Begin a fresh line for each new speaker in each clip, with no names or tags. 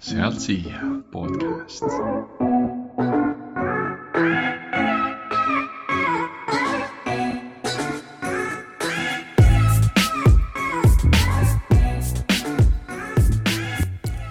Sealt siia podcast.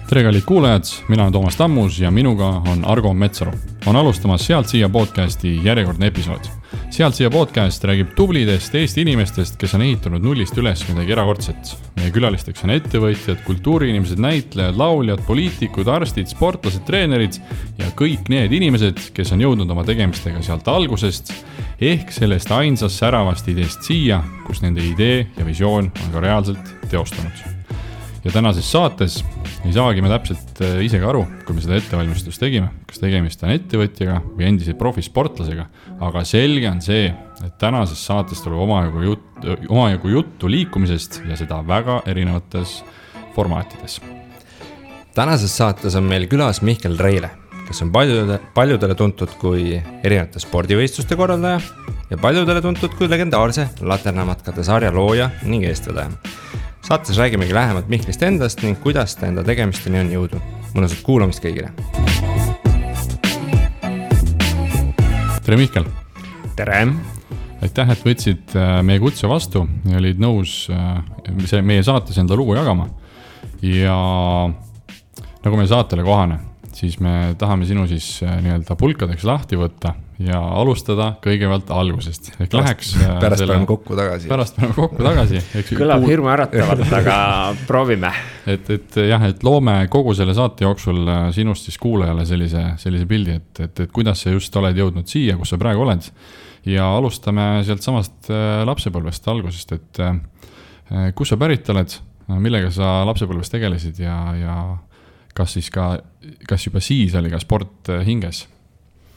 Tere kallid kuulajad, mina olen Toomas Tammus ja minuga on Argo Metsaru. On alustamas Sealt siia podcasti järjekordne episood. Sealt siia podcast räägib tublidest Eesti inimestest, kes on ehitanud nullist üles midagi erakordset. Meie külalisteks on ettevõtjad, kultuuriinimesed, näitlejad, lauljad, poliitikud, arstid, sportlased, treenerid ja kõik need inimesed, kes on jõudnud oma tegemistega sealt algusest ehk sellest ainsast säravast ideest siia, kus nende idee ja visioon on ka reaalselt teostunud. Ja tänases saates ei saagi me täpselt ise ka aru, kui me seda ettevalmistust tegime, kas tegemist on ettevõtjaga või endise profisportlasega, aga selge on see, et tänases saates tuleb omajagu juttu liikumisest ja seda väga erinevates formaatides.
Tänases saates on meil külas Mihkel Reile, kes on paljudele tuntud kui erinevate spordivõistluste korraldaja ja paljudele tuntud kui legendaarse laternamatkade sarja looja ning eestvedaja. Saates räägimegi lähemalt Mihklist endast ning kuidas ta enda tegemisteni on jõudnud. Mõnusat kuulamist kõigile.
Tere Mihkel!
Tere!
Aitäh, et võtsid meie kutse vastu ja olid nõus meie saates enda lugu jagama. Ja nagu meie saatele kohane, siis me tahame sinu siis nii-öelda pulkadeks lahti võtta ja alustada kõigepealt algusest.
Pärast paneme kokku tagasi.
Kõlab hirmu äratavalt, aga proovime.
Et loome kogu selle saate jooksul sinust siis kuulajale sellise pildi, et kuidas sa just oled jõudnud siia, kus sa praegu oled. Ja alustame sealt samast lapsepõlvest algusest, et kus sa pärit oled, millega sa lapsepõlvest tegelesid ja kas juba siis oli ka sport hinges?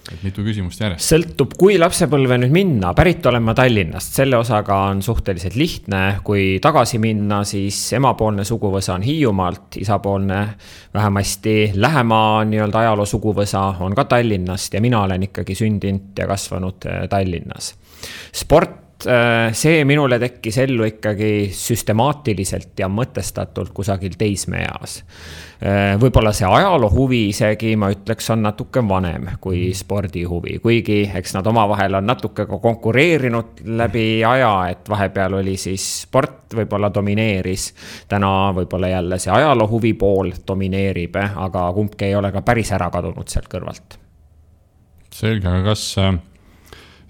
Et mitu küsimust järjest.
Sõltub, kui lapsepõlve nüüd minna. Pärit olen ma Tallinnast. Selle osaga on suhteliselt lihtne. Kui tagasi minna, siis emapoolne suguvõsa on Hiiumaalt. Isapoolne vähemasti lähema nii-öelda ajaloo suguvõsa on ka Tallinnast ja mina olen ikkagi sündinud ja kasvanud Tallinnas. Sport, see minule tekkis ellu ikkagi süstemaatiliselt ja mõtestatult kusagil teismeeas. Võib-olla see ajaloo huvi isegi, ma ütleks, on natuke vanem kui spordi huvi. Kuigi eks nad omavahel on natuke konkureerinud läbi aja, et vahepeal oli siis sport võib-olla domineeris. Täna võib-olla jälle see ajaloo huvi pool domineerib, aga kumbki ei ole ka päris ära kadunud sealt kõrvalt.
Selge, aga kas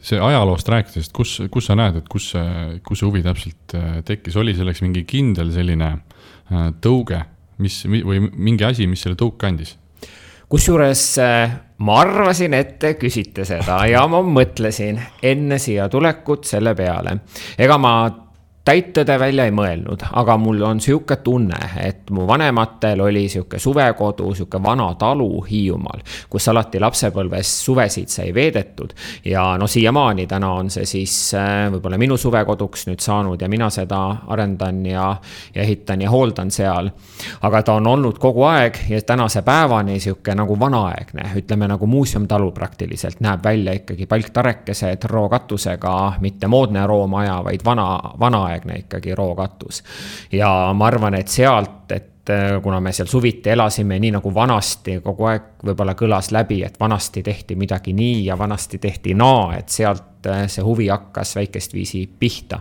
see ajaloost rääkides, kus sa näed, et kus see huvi täpselt tekkis? Oli selleks mingi kindel selline tõuge või mingi asi, mis selle tõuk kandis?
Kusjuures ma arvasin, et te küsite seda ja ma mõtlesin enne siia tulekut selle peale. Ega ma täittõde välja ei mõelnud, aga mul on siuke tunne, et mu vanematel oli siuke suvekodu, siuke vana talu Hiiumaal, kus alati lapsepõlves suvesid sai veedetud ja siiamaani täna on see siis võib-olla minu suvekoduks nüüd saanud ja mina seda arendan ja ehitan ja hooldan seal. Aga ta on olnud kogu aeg ja tänase päevani siuke nagu vanaaegne, ütleme nagu muuseumtalu praktiliselt, näeb välja ikkagi palktarekesed rookatusega, mitte moodne roomaja, vaid vanaaegne ikkagi rookatus. Ja ma arvan, et sealt, et kuna me seal suviti elasime nii nagu vanasti, kogu aeg võib-olla kõlas läbi, et vanasti tehti midagi nii ja vanasti tehti naa, et sealt see huvi hakkas väikest viisi pihta.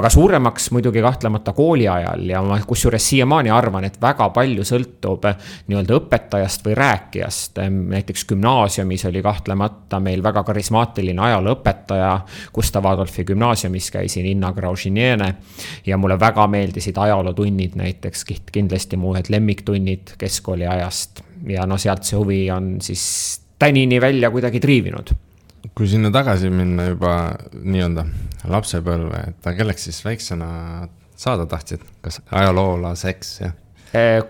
Aga suuremaks muidugi kahtlemata kooli ajal ja ma kusjuures siiamaani arvan, et väga palju sõltub nii-öelda õpetajast või rääkijast. Näiteks gümnaasiumis oli kahtlemata meil väga karismaatiline ajalooõpetaja, Gustav Adolfi gümnaasiumis käisin Inna Graužiniene ja mulle väga meeldisid ajalootunnid, näiteks kindlasti mu ühed lemmiktunnid keskkooli ajast ja sealt see huvi on siis tänini välja kuidagi triivinud.
Kui sinna tagasi minna juba nii-öelda lapsepõlve, et kelleks siis väiksena saada tahtsid? Kas ajaloolaseks?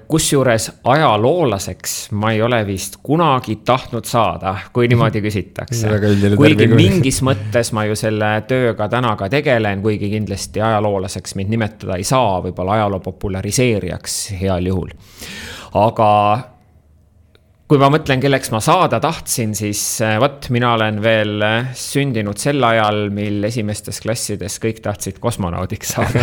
Kusjuures ajaloolaseks ma ei ole vist kunagi tahtnud saada, kui niimoodi küsitakse. Kuigi mingis mõttes ma ju selle tööga täna ka tegelen, kuigi kindlasti ajaloolaseks mind nimetada ei saa, võib-olla ajaloo populariseerijaks heal juhul. Aga kui ma mõtlen, kelleks ma saada tahtsin, siis mina olen veel sündinud sel ajal, mil esimestes klassides kõik tahtsid kosmonaudiks saada.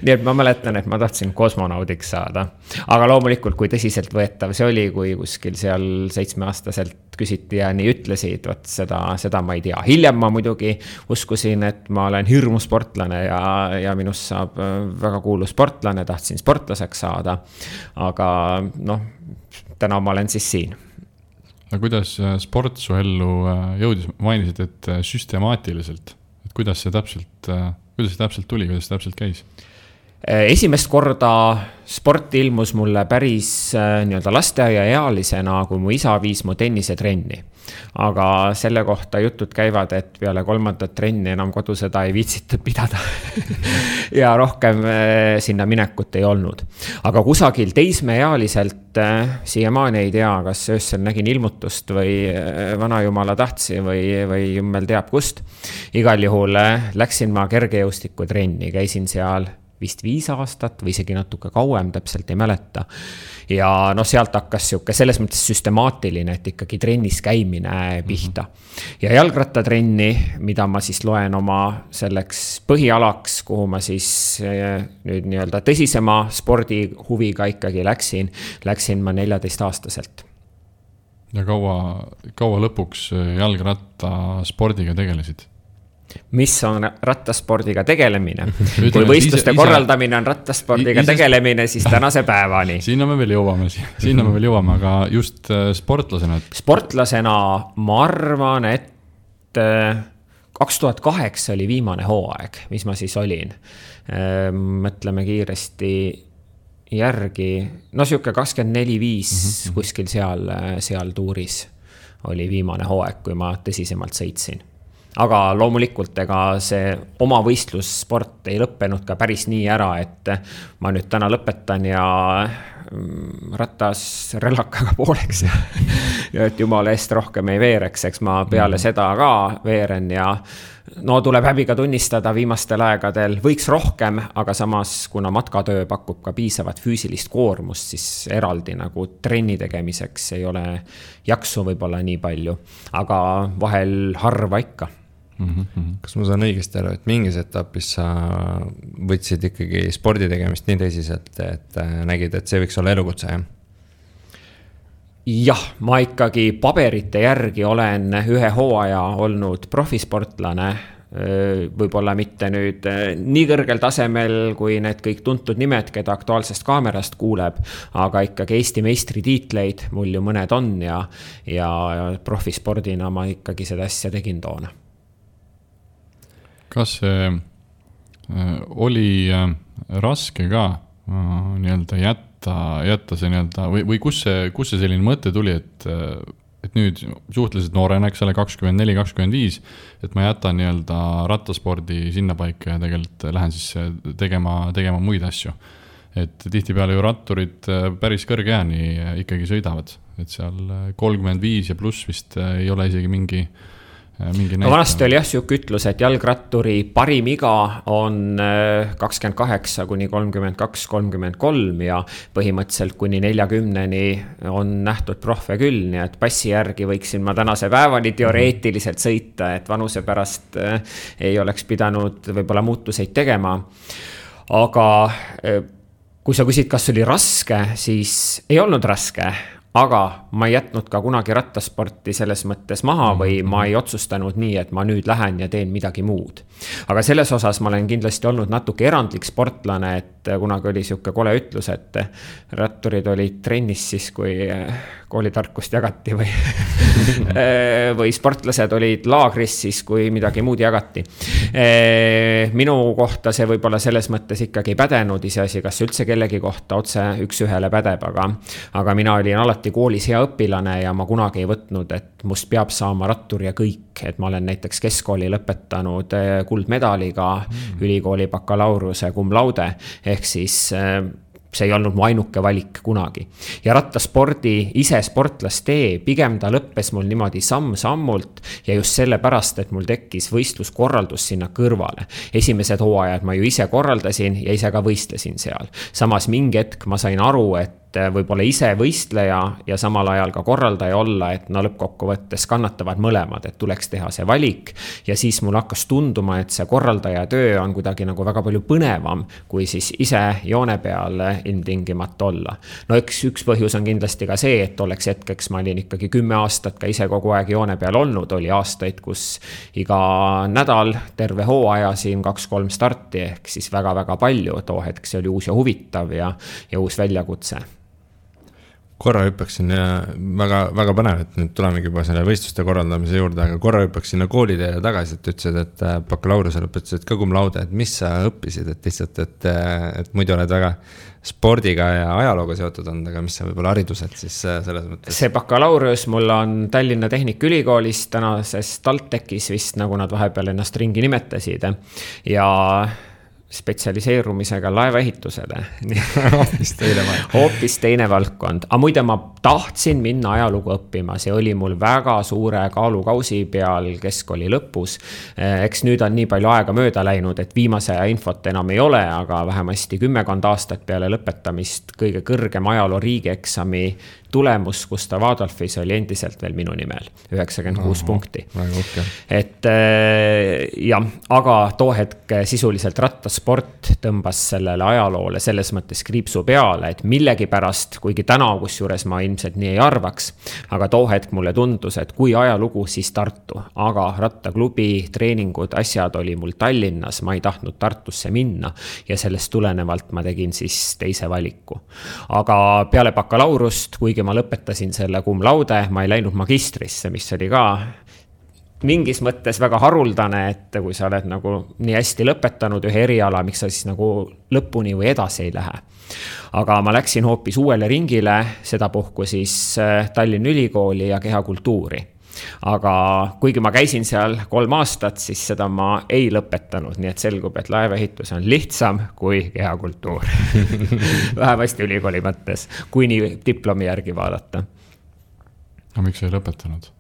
Nii et ma mäletan, et ma tahtsin kosmonaudiks saada. Aga loomulikult, kui tõsiselt võetav see oli, kui kuskil seal 7-aastaselt küsiti ja nii ütlesid, seda ma ei tea. Hiljem ma muidugi uskusin, et ma olen hirmu sportlane ja minust saab väga kuulu sportlane, tahtsin sportlaseks saada. Aga täna ma olen siis siin.
Aga kuidas sport su ellu jõudis? Mainisid, et süstemaatiliselt. Et kuidas see täpselt tuli, kuidas see täpselt käis?
Esimest korda sport ilmus mulle päris lasteaia ealisena, kui mu isa viis mu tennisetrenni. Aga selle kohta jutud käivad, et peale 3. trenni enam kodu seda ei viitsitud pidada. Ja rohkem sinna minekut ei olnud. Aga kusagil teismeealiselt siiamaani ei tea, kas öösel nägin ilmutust või vanajumala tahtsi või jummel teab kust. Igal juhul läksin ma kergejõustiku trenni, käisin seal vist 5 aastat või isegi natuke kauem, täpselt ei mäleta. Ja sealt hakkas selles mõttes süstemaatiline, et ikkagi trennis käimine pihta. Ja jalgrattatrenni, mida ma siis loen oma selleks põhialaks, kuhu ma siis nüüd tõsisema spordihuviga ikkagi läksin ma 14-aastaselt.
Ja kaua lõpuks jalgrattaspordiga tegelesid?
Mis on rattaspordiga tegelemine? Kui võistluste korraldamine on rattaspordiga tegelemine, siis tänase päevani.
Sinna me veel jõuame, aga just sportlasena?
Sportlasena ma arvan, et 2008 oli viimane hooaeg, mis ma siis olin. Mõtleme kiiresti järgi. Siuke 24-5 kuskil seal tuuris oli viimane hooaeg, kui ma tõsisemalt sõitsin. Aga loomulikult see oma võistlussport ei lõppenud ka päris nii ära, et ma nüüd täna lõpetan ja ratas relakaga pooleks ja et jumala eest rohkem ei veereks, eks ma peale seda ka veeren ja tuleb häbiga tunnistada viimastel aegadel võiks rohkem, aga samas kuna matkatöö pakub ka piisavat füüsilist koormust, siis eraldi nagu trenni tegemiseks ei ole jaksu võib-olla nii palju, aga vahel harva ikka.
Kas ma saan õigesti aru, et mingis etapis sa võtsid ikkagi spordi tegemist nii tõsiselt, et nägid, et see võiks olla elukutse, jah?
Jah, ma ikkagi paberite järgi olen ühe hooaja olnud profisportlane, võib-olla mitte nüüd nii kõrgel tasemel, kui need kõik tuntud nimed, keda Aktuaalsest kaamerast kuuleb, aga ikkagi Eesti meistritiitleid mul ju mõned on ja profispordina ma ikkagi seda asja tegin toona.
Kas see oli raske ka jätta see või kus see selline mõte tuli, et nüüd suhteliselt noorena, eks ole, 24-25, et ma jätan rattaspordi sinna paika ja tegelikult lähen siis tegema muid asju. Et tihtipeale ju ratturid päris kõrge jääni ikkagi sõidavad, et seal 35 ja pluss vist ei ole isegi mingi
vanasti oli siuke ütlus, et jalgratturi parim iga on 28 kuni 32-33 ja põhimõtteliselt kuni 40-ni on nähtud profe küll, nii et passi järgi võiksin ma tänase päevani teoreetiliselt sõita, et vanuse pärast ei oleks pidanud võib-olla muutuseid tegema. Aga kui sa küsid, kas oli raske, siis ei olnud raske. Aga ma ei jätnud ka kunagi rattasporti selles mõttes maha või ma ei otsustanud nii, et ma nüüd lähen ja teen midagi muud. Aga selles osas ma olen kindlasti olnud natuke erandlik sportlane, et kunagi oli siuke kole ütlus, et ratturid olid trennis siis, kui koolitarkust jagati või sportlased olid laagris siis, kui midagi muud jagati. Minu kohta see võib-olla selles mõttes ikkagi pädenud, iseasi, kas üldse kellegi kohta otse üks-ühele pädeb, aga mina olin alati koolis hea õpilane ja ma kunagi ei võtnud, et must peab saama rattur ja kõik, et ma olen näiteks keskkooli lõpetanud kuldmedaliga, ülikooli bakalaureuse cum laude, ehk siis see ei olnud mu ainuke valik kunagi. Ja rattaspordi ise sportlastee, pigem ta lõppes mul niimoodi samm-sammult ja just sellepärast, et mul tekkis võistluskorraldus sinna kõrvale. Esimesed hooajad ma ju ise korraldasin ja ise ka võistlesin seal. Samas mingi hetk ma sain aru, et võib-olla ise võistleja ja samal ajal ka korraldaja olla, et no lõppkokkuvõttes kannatavad mõlemad, et tuleks teha see valik ja siis mul hakkas tunduma, et see korraldaja töö on kuidagi nagu väga palju põnevam, kui siis ise joone peal ilmtingimata olla. No üks põhjus on kindlasti ka see, et oleks hetkeks ma olin ikkagi 10 aastat ka ise kogu aeg joone peal olnud, oli aastaid, kus iga nädal terve hooaja siin 2-3 starti ehk siis väga-väga palju, too hetk see oli uus ja huvitav ja uus väljakutse.
Korra hüppaksin ja väga põnev, et nüüd tulemegi juba selle võistluste korraldamise juurde, aga korra hüppaksin sinna koolide tagasi, et ütlesid, et bakalaureuse lõpetasid ka cum laude, et mis sa õppisid, et lihtsalt, et muidu oled väga spordiga ja ajalooga seotud olnud, aga mis sa võib-olla haridused siis selles mõttes? See
bakalaureus mul on Tallinna Tehnikaülikoolist, tänases TalTechis vist, nagu nad vahepeal ennast ringi nimetasid ja spetsialiseerumisega laevaehitusele. Hoopis teine valdkond. Aga muide ma tahtsin minna ajalugu õppima, see oli mul väga suure kaalukausi peal keskkooli lõpus. Eks nüüd on nii palju aega mööda läinud, et viimase aja infot enam ei ole, aga vähemasti 10 aastat peale lõpetamist kõige kõrgem ajaloo riigieksami tulemus Gustav Adolfis oli endiselt veel minu nimel, 96 punkti. Et jah, aga too hetk sisuliselt rattasport tõmbas sellele ajaloole selles mõttes kriipsu peale, et millegi pärast, kuigi täna kusjuures ma ilmselt nii ei arvaks, aga too hetk mulle tundus, et kui ajalugu, siis Tartu, aga rattaklubi, treeningud, asjad oli mul Tallinnas, ma ei tahtnud Tartusse minna ja sellest tulenevalt ma tegin siis teise valiku. Aga peale bakalaurust, kuigi ma lõpetasin selle cum laude, ma ei läinud magistrisse, mis oli ka mingis mõttes väga haruldane, et kui sa oled nagu nii hästi lõpetanud ühe eriala, miks sa siis nagu lõpuni või edasi ei lähe. Aga ma läksin hoopis uuele ringile, sedapuhku siis Tallinna Ülikooli ja kehakultuuri. Aga kuigi ma käisin seal 3 aastat, siis seda ma ei lõpetanud, nii et selgub, et laevaehitus on lihtsam kui kehakultuur. Vähemasti ülikooli mõttes, kui nii diplomi järgi vaadata.
Aga miks ei lõpetanud?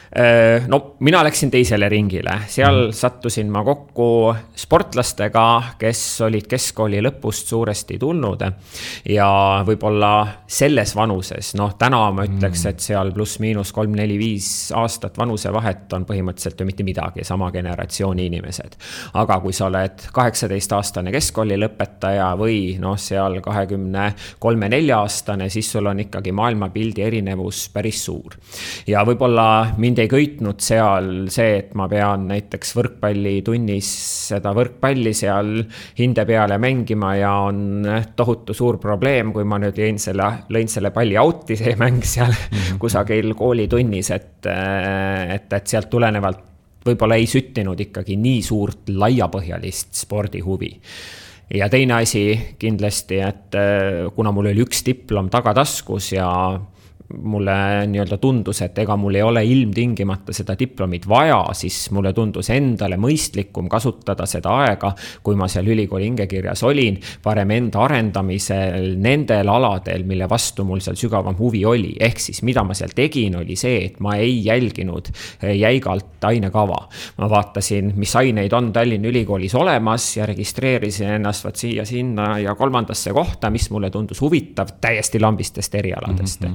No mina läksin teisele ringile, seal sattusin ma kokku sportlastega, kes olid keskkooli lõpust suuresti tulnud ja võib-olla selles vanuses, täna ma ütleks, et seal pluss miinus 3-4-5 aastat vanuse vahet on põhimõtteliselt ju mitte midagi, sama generatsiooni inimesed. Aga kui sa oled 18-aastane keskkooli lõpetaja või seal 23-4 aastane, siis sul on ikkagi maailmapildi erinevus päris suur. Ja võib-olla mind ei köitnud seal see, et ma pean näiteks võrkpallitunnis seda võrkpalli seal hinde peale mängima ja on tohutu suur probleem, kui ma nüüd lõin selle palli auti, see mäng seal kusagil koolitunnis, et sealt tulenevalt võib-olla ei süttinud ikkagi nii suurt laiapõhjalist spordihuvi. Ja teine asi kindlasti, et kuna mul oli üks diplom tagataskus ja mulle nii-öelda tundus, et ega mul ei ole ilmtingimata seda diplomit vaja, siis mulle tundus endale mõistlikum kasutada seda aega, kui ma seal ülikooli hingekirjas olin, parem enda arendamisel nendel aladel, mille vastu mul seal sügavam huvi oli. Ehk siis, mida ma seal tegin, oli see, et ma ei jälginud jäigalt ainekava. Ma vaatasin, mis aineid on Tallinna Ülikoolis olemas ja registreerisin ennast siia, sinna ja 3. kohta, mis mulle tundus huvitav täiesti lambistest erialadest.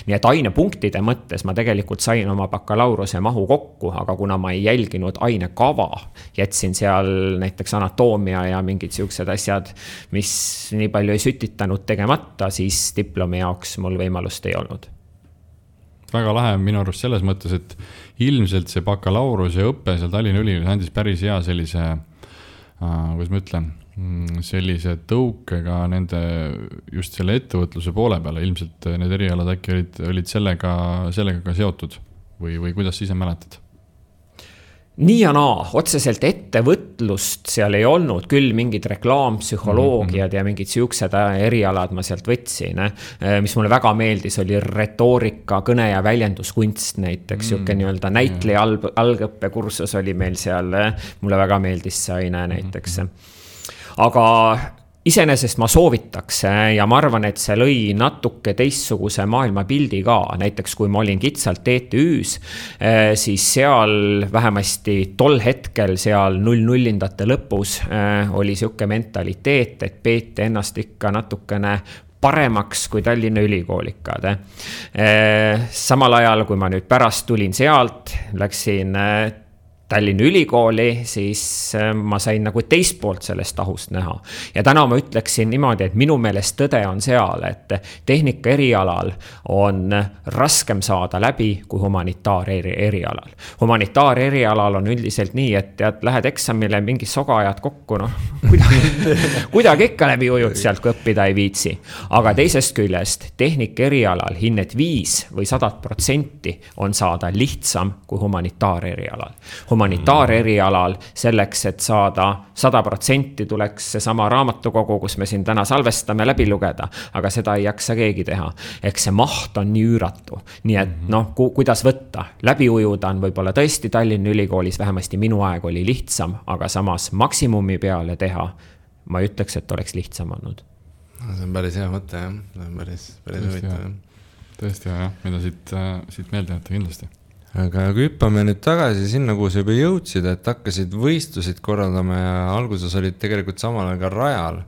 Nii et ainepunktide mõttes ma tegelikult sain oma bakalauruse mahu kokku, aga kuna ma ei jälginud ainekava, jätsin seal näiteks anatoomia ja mingid siuksed asjad, mis nii palju ei sütitanud tegemata, siis diplomi jaoks mul võimalust ei olnud.
Väga lahe minu arust selles mõttes, et ilmselt see bakalauruse õppe seal Tallinna Ülikoolis andis päris hea sellise, kuidas ma ütlen, sellise tõukega nende just selle ettevõtluse poole peale, ilmselt need erialad äkki olid sellega ka seotud või kuidas ise mäletad?
Nii ja naa, otseselt ettevõtlust seal ei olnud, küll mingid reklaampsühholoogiad ja mingid siuksed erialad ma sealt võtsin. Mis mulle väga meeldis, oli retoorika, kõne ja väljenduskunst näiteks, siuke nii-öelda näitleja algõppekursus oli meil seal, mulle väga meeldis see aine näiteks. Aga iseenesest ma soovitaks ja ma arvan, et see lõi natuke teistsuguse maailmapildi ka. Näiteks kui ma olin kitsalt TTÜs, siis seal vähemasti tol hetkel seal 00-ndate lõpus oli siuke mentaliteet, et peeti ennast ikka natukene paremaks kui Tallinna ülikoolikaad. Samal ajal, kui ma nüüd pärast tulin sealt, läksin Tallinna ülikooli, siis ma sain nagu teist poolt sellest tahust näha. Ja täna ma ütleksin niimoodi, et minu meelest tõde on seal, et tehnika erialal on raskem saada läbi kui humanitaar erialal. Humanitaar erialal on üldiselt nii, et tead, lähed eksamile, mingi soga ajad kokku, kuidagi ikka läbi ujud sealt, kui õppida ei viitsi. Aga teisest küljest tehnika erialal hinnet 5 või 100% on saada lihtsam kui humanitaar erialal. Humanitaar erialal selleks, et saada 100% tuleks see sama raamatukogu, kus me siin täna salvestame läbi lugeda, aga seda ei jaksa keegi teha. Eks see maht on nii üüratu. Nii et kuidas võtta? Läbi ujuda on võib-olla tõesti Tallinna ülikoolis, vähemasti minu aeg oli lihtsam, aga samas maksimumi peale teha, ma ütleks, et oleks lihtsam olnud.
See on päris hea mõte, jah. See on päris huvitav.
Tõesti hea, mida siit meelde jätta kindlasti.
Aga kui hüppame nüüd tagasi sinna, kuhu sa juba jõudsid, et hakkasid võistlusid korraldama ja alguses olid tegelikult samal ajal ka rajal.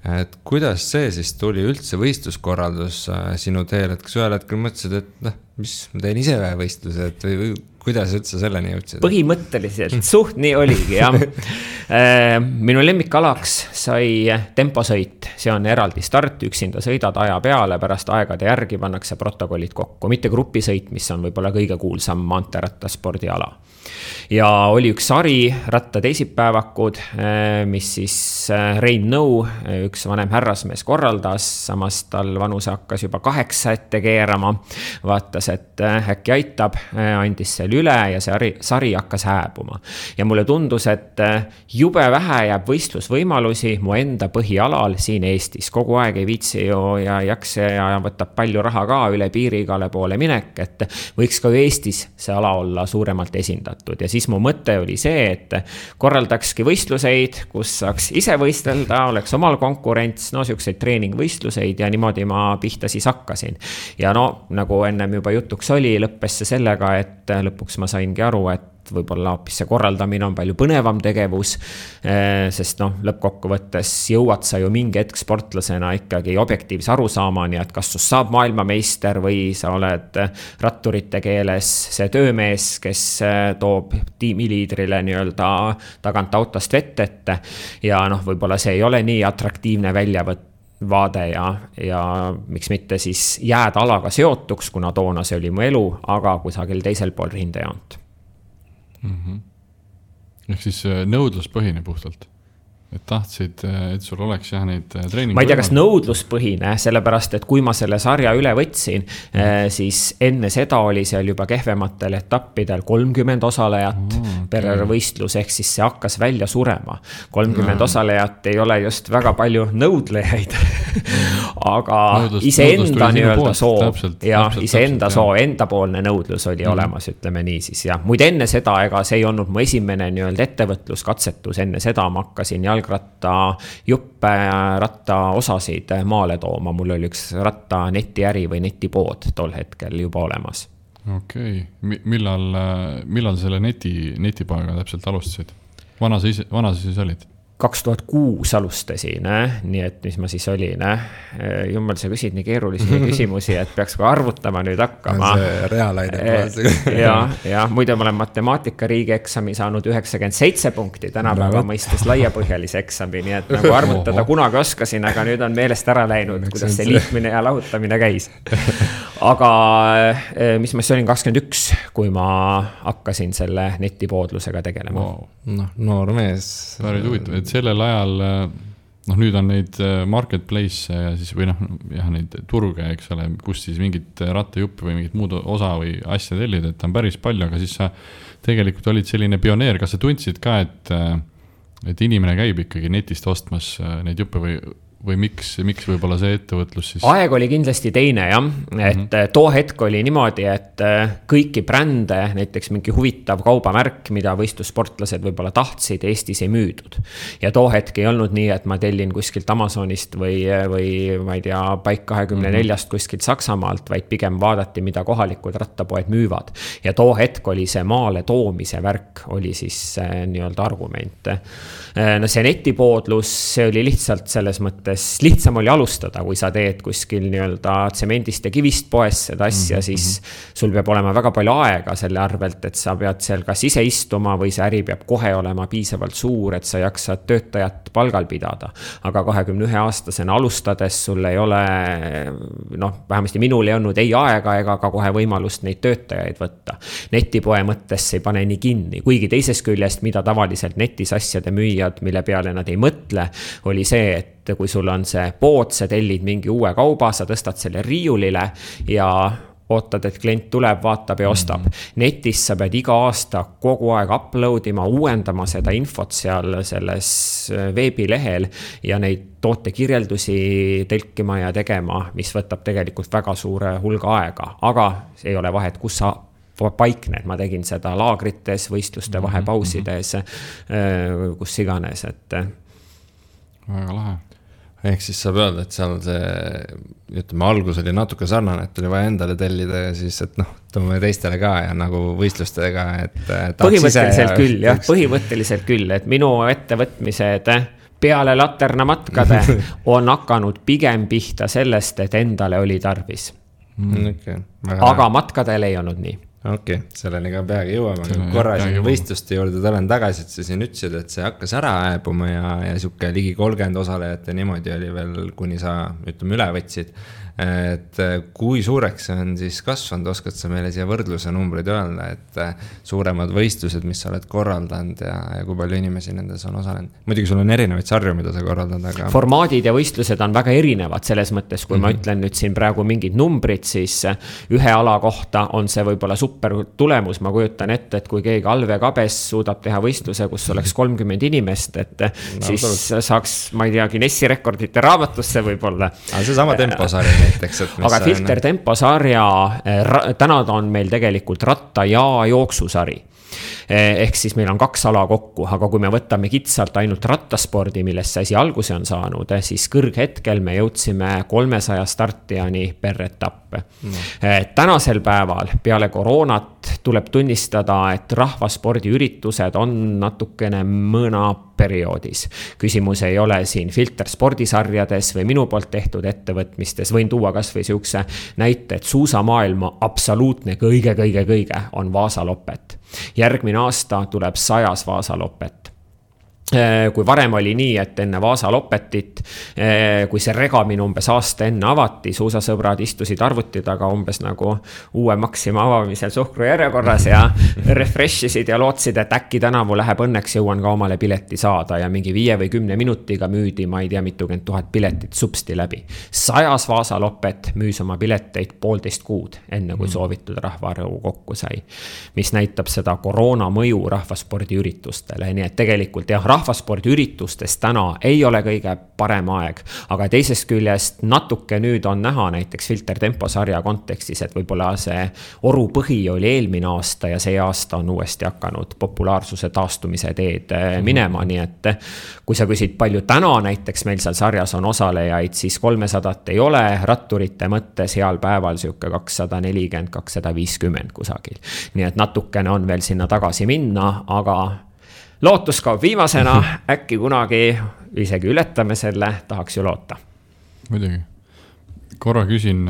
Et kuidas see siis tuli üldse võistluskorraldus sinu teel, et kas ühel hetkel mõtlesid, et mis ma teen ise võistluse, et või kuidas üldse selleni jõudsid?
Põhimõtteliselt suht nii oligi, jah. Minu lemmikalaks sai temposõit, see on eraldi start, üksinda sõidad aja peale, pärast aegade järgi pannakse protokollid kokku, mitte grupisõit, mis on võib-olla kõige kuulsam maanteerattaspordiala. Ja oli üks sari, ratta teisipäevakud, mis siis Rein Nõu, üks vanem härrasmees korraldas, samas tal vanuse hakkas juba 8 ette keerama, vaatas, et äkki aitab, andis selle üle ja see sari hakkas hääbuma. Ja mulle tundus, et jube vähe jääb võistlusvõimalusi mu enda põhialal siin Eestis. Kogu aeg ei viitsi ju ja jakse ja võtab palju raha ka üle piiri igale poole minek, et võiks ka Eestis see ala olla suuremalt esindatud. Ja siis mu mõte oli see, et korraldakski võistluseid, kus saaks ise võistelda, oleks omal konkurents, siukseid treeningvõistluseid ja niimoodi ma pihta siis hakkasin. Ja nagu ennem juba jutuks oli, lõppes see sellega, et lõpuks ma saingi aru, et võib-olla hoopis see korraldamine on palju põnevam tegevus, sest lõppkokkuvõttes jõuad sa ju mingi hetk sportlasena ikkagi objektiivse arusaamani, et kas sust saab maailmameister või sa oled ratturite keeles see töömees, kes toob tiimiliidrile nii-öelda tagant autost vett ette ja võib-olla see ei ole nii atraktiivne väljavaade ja miks mitte siis jääd alaga seotuks, kuna toona see oli mu elu, aga kusagil teisel pool rindejoont.
Ehk siis nõudluspõhine puhtalt, et tahtsid, et sul oleks neid treeningu.
Ma ei tea, kas nõudluspõhine, sellepärast, et kui ma selle sarja üle võtsin, siis enne seda oli seal juba kehvematel etappidel 30 osalejat per võistlus, ehk siis see hakkas välja surema. 30 osalejat ei ole just väga palju nõudlejaid, aga iseenda nii-öelda soov ja iseenda soov, endapoolne nõudlus oli olemas, ütleme nii siis. Ja muide enne seda, ega see ei olnud mu esimene nii-öelda ettevõtluskatsetus, enne seda ma hakkasin jalgratta juppe, ratta osasid maale tooma. Mul oli üks ratta netiäri või netipood tol hetkel juba olemas.
Okei. Millal selle netipoega täpselt alustasid? Vana sa siis olid?
2006 alustasin, nii et mis ma siis olin. Jummel, sa küsid nii keerulisi küsimusi, et peaks ka arvutama nüüd hakkama.
See reaalaine.
Ja muide ma olen matemaatika riigieksami saanud 97 punkti, tänapäeva mõistes laiapõhjalise eksami, nii et nagu arvutada kunagi oskasin, aga nüüd on meelest ära läinud, kuidas see liitmine ja lahutamine käis. Aga mis ma siis olin 21, kui ma hakkasin selle netipoodlusega tegelema.
Noor mees.
Päris huvitav, et sellel ajal, nüüd on neid marketplace ja siis või neid turge, eks ole, kus siis mingit rattajuppi või mingit muud osa või asja tellid, et on päris palju, aga siis sa tegelikult olid selline pioneer, kas sa tundsid ka, et inimene käib ikkagi netist ostmas neid juppe või miks võib-olla see ettevõtlus siis?
Aeg oli kindlasti teine, jah. Et too hetk oli niimoodi, et kõiki brände, näiteks mingi huvitav kaubamärk, mida võistlussportlased võib-olla tahtsid, Eestis ei müüdud. Ja too hetk ei olnud nii, et ma tellin kuskilt Amazonist või ma ei tea, Bike 24 kuskilt Saksamaalt, vaid pigem vaadati, mida kohalikud rattapoed müüvad. Ja too hetk oli see maale toomise värk, oli siis nii-öelda argument. See netipoodlus, see oli lihtsalt selles mõttes mõttes lihtsam oli alustada, kui sa teed kuskil nii-öelda tsemendist ja kivist poes seda asja, siis sul peab olema väga palju aega selle arvelt, et sa pead seal kas ise istuma või see äri peab kohe olema piisavalt suur, et sa jaksad töötajat palgal pidada. Aga 21-aastasena alustades sul ei ole, vähemasti minul ei olnud ei aega ega ka kohe võimalust neid töötajaid võtta. Netipoe mõttes ei pane nii kinni, kuigi teisest küljest, mida tavaliselt netis asjade müüjad, mille peale nad ei mõtle, oli see, et kui sul on see pood, sa tellid mingi uue kauba, sa tõstad selle riiulile ja ootad, et klient tuleb, vaatab ja ostab. Netis sa pead iga aasta kogu aeg uploadima, uuendama seda infot seal selles veebilehel ja neid tootekirjeldusi tõlkima ja tegema, mis võtab tegelikult väga suure hulga aega. Aga ei ole vahet, kus sa paikned, ma tegin seda laagrites, võistluste vahepausides, kus iganes, et
väga lahe.
Ehk siis saab öelda, et seal see, algus oli natuke sarnane, et oli vaja endale tellida ja siis, et toome teistele ka ja nagu võistlustega, et
põhimõtteliselt küll, et minu ettevõtmised peale laternamatkade on hakanud pigem pihta sellest, et endale oli tarvis. Aga matkadel ei olnud nii.
Okei, selleni ka peagi jõuame. Korra siin võistluste juurde tulen tagasi, et sa siin ütlesid, et see hakkas ära ääbuma ja siuke ligi 30 osalejate niimoodi oli veel, kuni sa üle võtsid. Et kui suureks see on siis kasvanud, oskad sa meile siia võrdluse numbrid öelda, et suuremad võistlused, mis sa oled korraldanud ja kui palju inimesi nendes on osalenud? Muidugi sul on erinevaid sarju, mida sa korraldad, aga...
Formaadid ja võistlused on väga erinevad selles mõttes, kui ma ütlen nüüd siin praegu mingid numbrid, siis ühe ala kohta on see võib-olla super tulemus. Ma kujutan ette, et kui keegi Alve Kabes suudab teha võistluse, kus oleks 30 inimest, et siis saaks, ma ei tea, Guinessi rekordite raamatusse võib-olla.
Aga see sama temposari näiteks,
aga Filter Tempo sarja, täna on meil tegelikult ratta- ja jooksusari. Ehk siis meil on 2 ala kokku, aga kui me võtame kitsalt ainult rattaspordi, millest see asi alguse on saanud, siis kõrghetkel me jõudsime 300 startijani per etapp. Tänasel päeval peale koroonat tuleb tunnistada, et rahvaspordiüritused on natukene mõna perioodis. Küsimus ei ole siin Filter spordisarjades või minu poolt tehtud ettevõtmistes. Võin tuua kas või siukse näite, et suusamaailma absoluutne kõige on Vaasalopet. Järgmine aasta tuleb 100 Vaasalopet. Kui varem oli nii, et enne Vaasalopetit, kui see regamine umbes aasta enne avati, suusasõbrad istusid arvuti taga umbes nagu uue Maxima avamisel suhkru järjekorras ja refreshisid ja lootsid, et äkki tänavu läheb õnneks, jõuan ka omale pileti saada ja mingi 5 või 10 minutiga müüdi, ma ei tea, mitukümmend 1000 piletit supsti läbi. 100 Vaasalopet müüs oma pileteid 1,5 kuud, enne kui soovitud rahvaarvu kokku sai, mis näitab seda koroona mõju rahvaspordiüritustele, nii et tegelikult jah, rahvaspordiüritustes täna ei ole kõige parem aeg, aga teisest küljest natuke nüüd on näha näiteks Filter Tempo sarja kontekstis, et võib-olla see oru põhi oli eelmine aasta ja see aasta on uuesti hakanud populaarsuse taastumise teed minema, nii et kui sa küsid palju täna näiteks meil seal sarjas on osalejaid, siis 300 ei ole, ratturite mõttes heal päeval siuke 240, 250 kusagil. Nii et natukene on veel sinna tagasi minna, aga lootus kaob viimasena, äkki kunagi isegi ületame selle, tahaks ju loota.
Muidugi. Korra küsin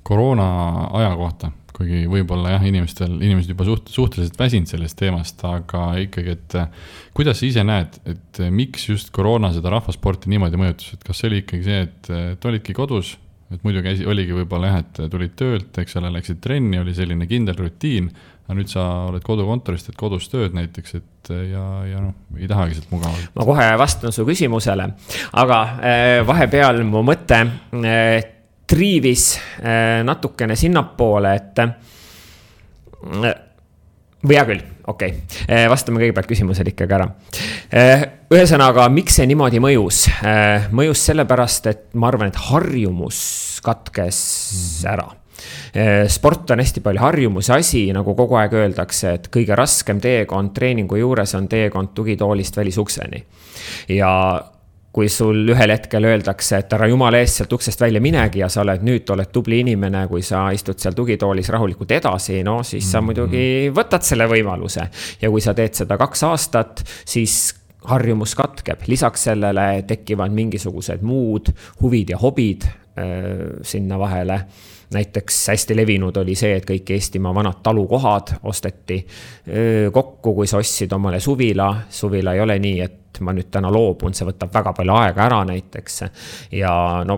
koroona aja kohta, kuigi võib-olla jah, inimesed juba suhteliselt väsinud sellest teemast, aga ikkagi, et kuidas sa ise näed, et miks just koroona seda rahvasporti niimoodi mõjutus, et kas see oli ikkagi see, et olidki kodus, et muidu oligi võib-olla jah, et tulid töölt, eks ole, läksid trenni, oli selline kindel rutiin, aga nüüd sa oled kodukontorist, et kodus tööd näiteks, et ja ei tahagi sealt mugavalt. Ma
kohe vastan su küsimusele, aga vahepeal mu mõte triivis natukene sinnapoole, et või hea küll, okei. Vastame kõigepealt küsimusele ikkagi ära. Ühesõnaga, miks see niimoodi mõjus? Mõjus sellepärast, et ma arvan, et harjumus katkes ära. Sport on hästi palju harjumuse asi, nagu kogu aeg öeldakse, et kõige raskem teekond treeningu juures on teekond tugitoolist välisukseni. Ja kui sul ühel hetkel öeldakse, et ära jumala eest sealt uksest välja minegi ja sa oled tubli inimene, kui sa istud seal tugitoolis rahulikult edasi, siis sa muidugi võtad selle võimaluse. Ja kui sa teed seda 2 aastat, siis harjumus katkeb, lisaks sellele tekivad mingisugused muud huvid ja hobid sinna vahele. Näiteks hästi levinud oli see, et kõik Eestimaa vanad talukohad osteti kokku, kui sa ostsid omale suvila. Suvila ei ole nii, et ma nüüd täna loobun, see võtab väga palju aega ära näiteks. Ja no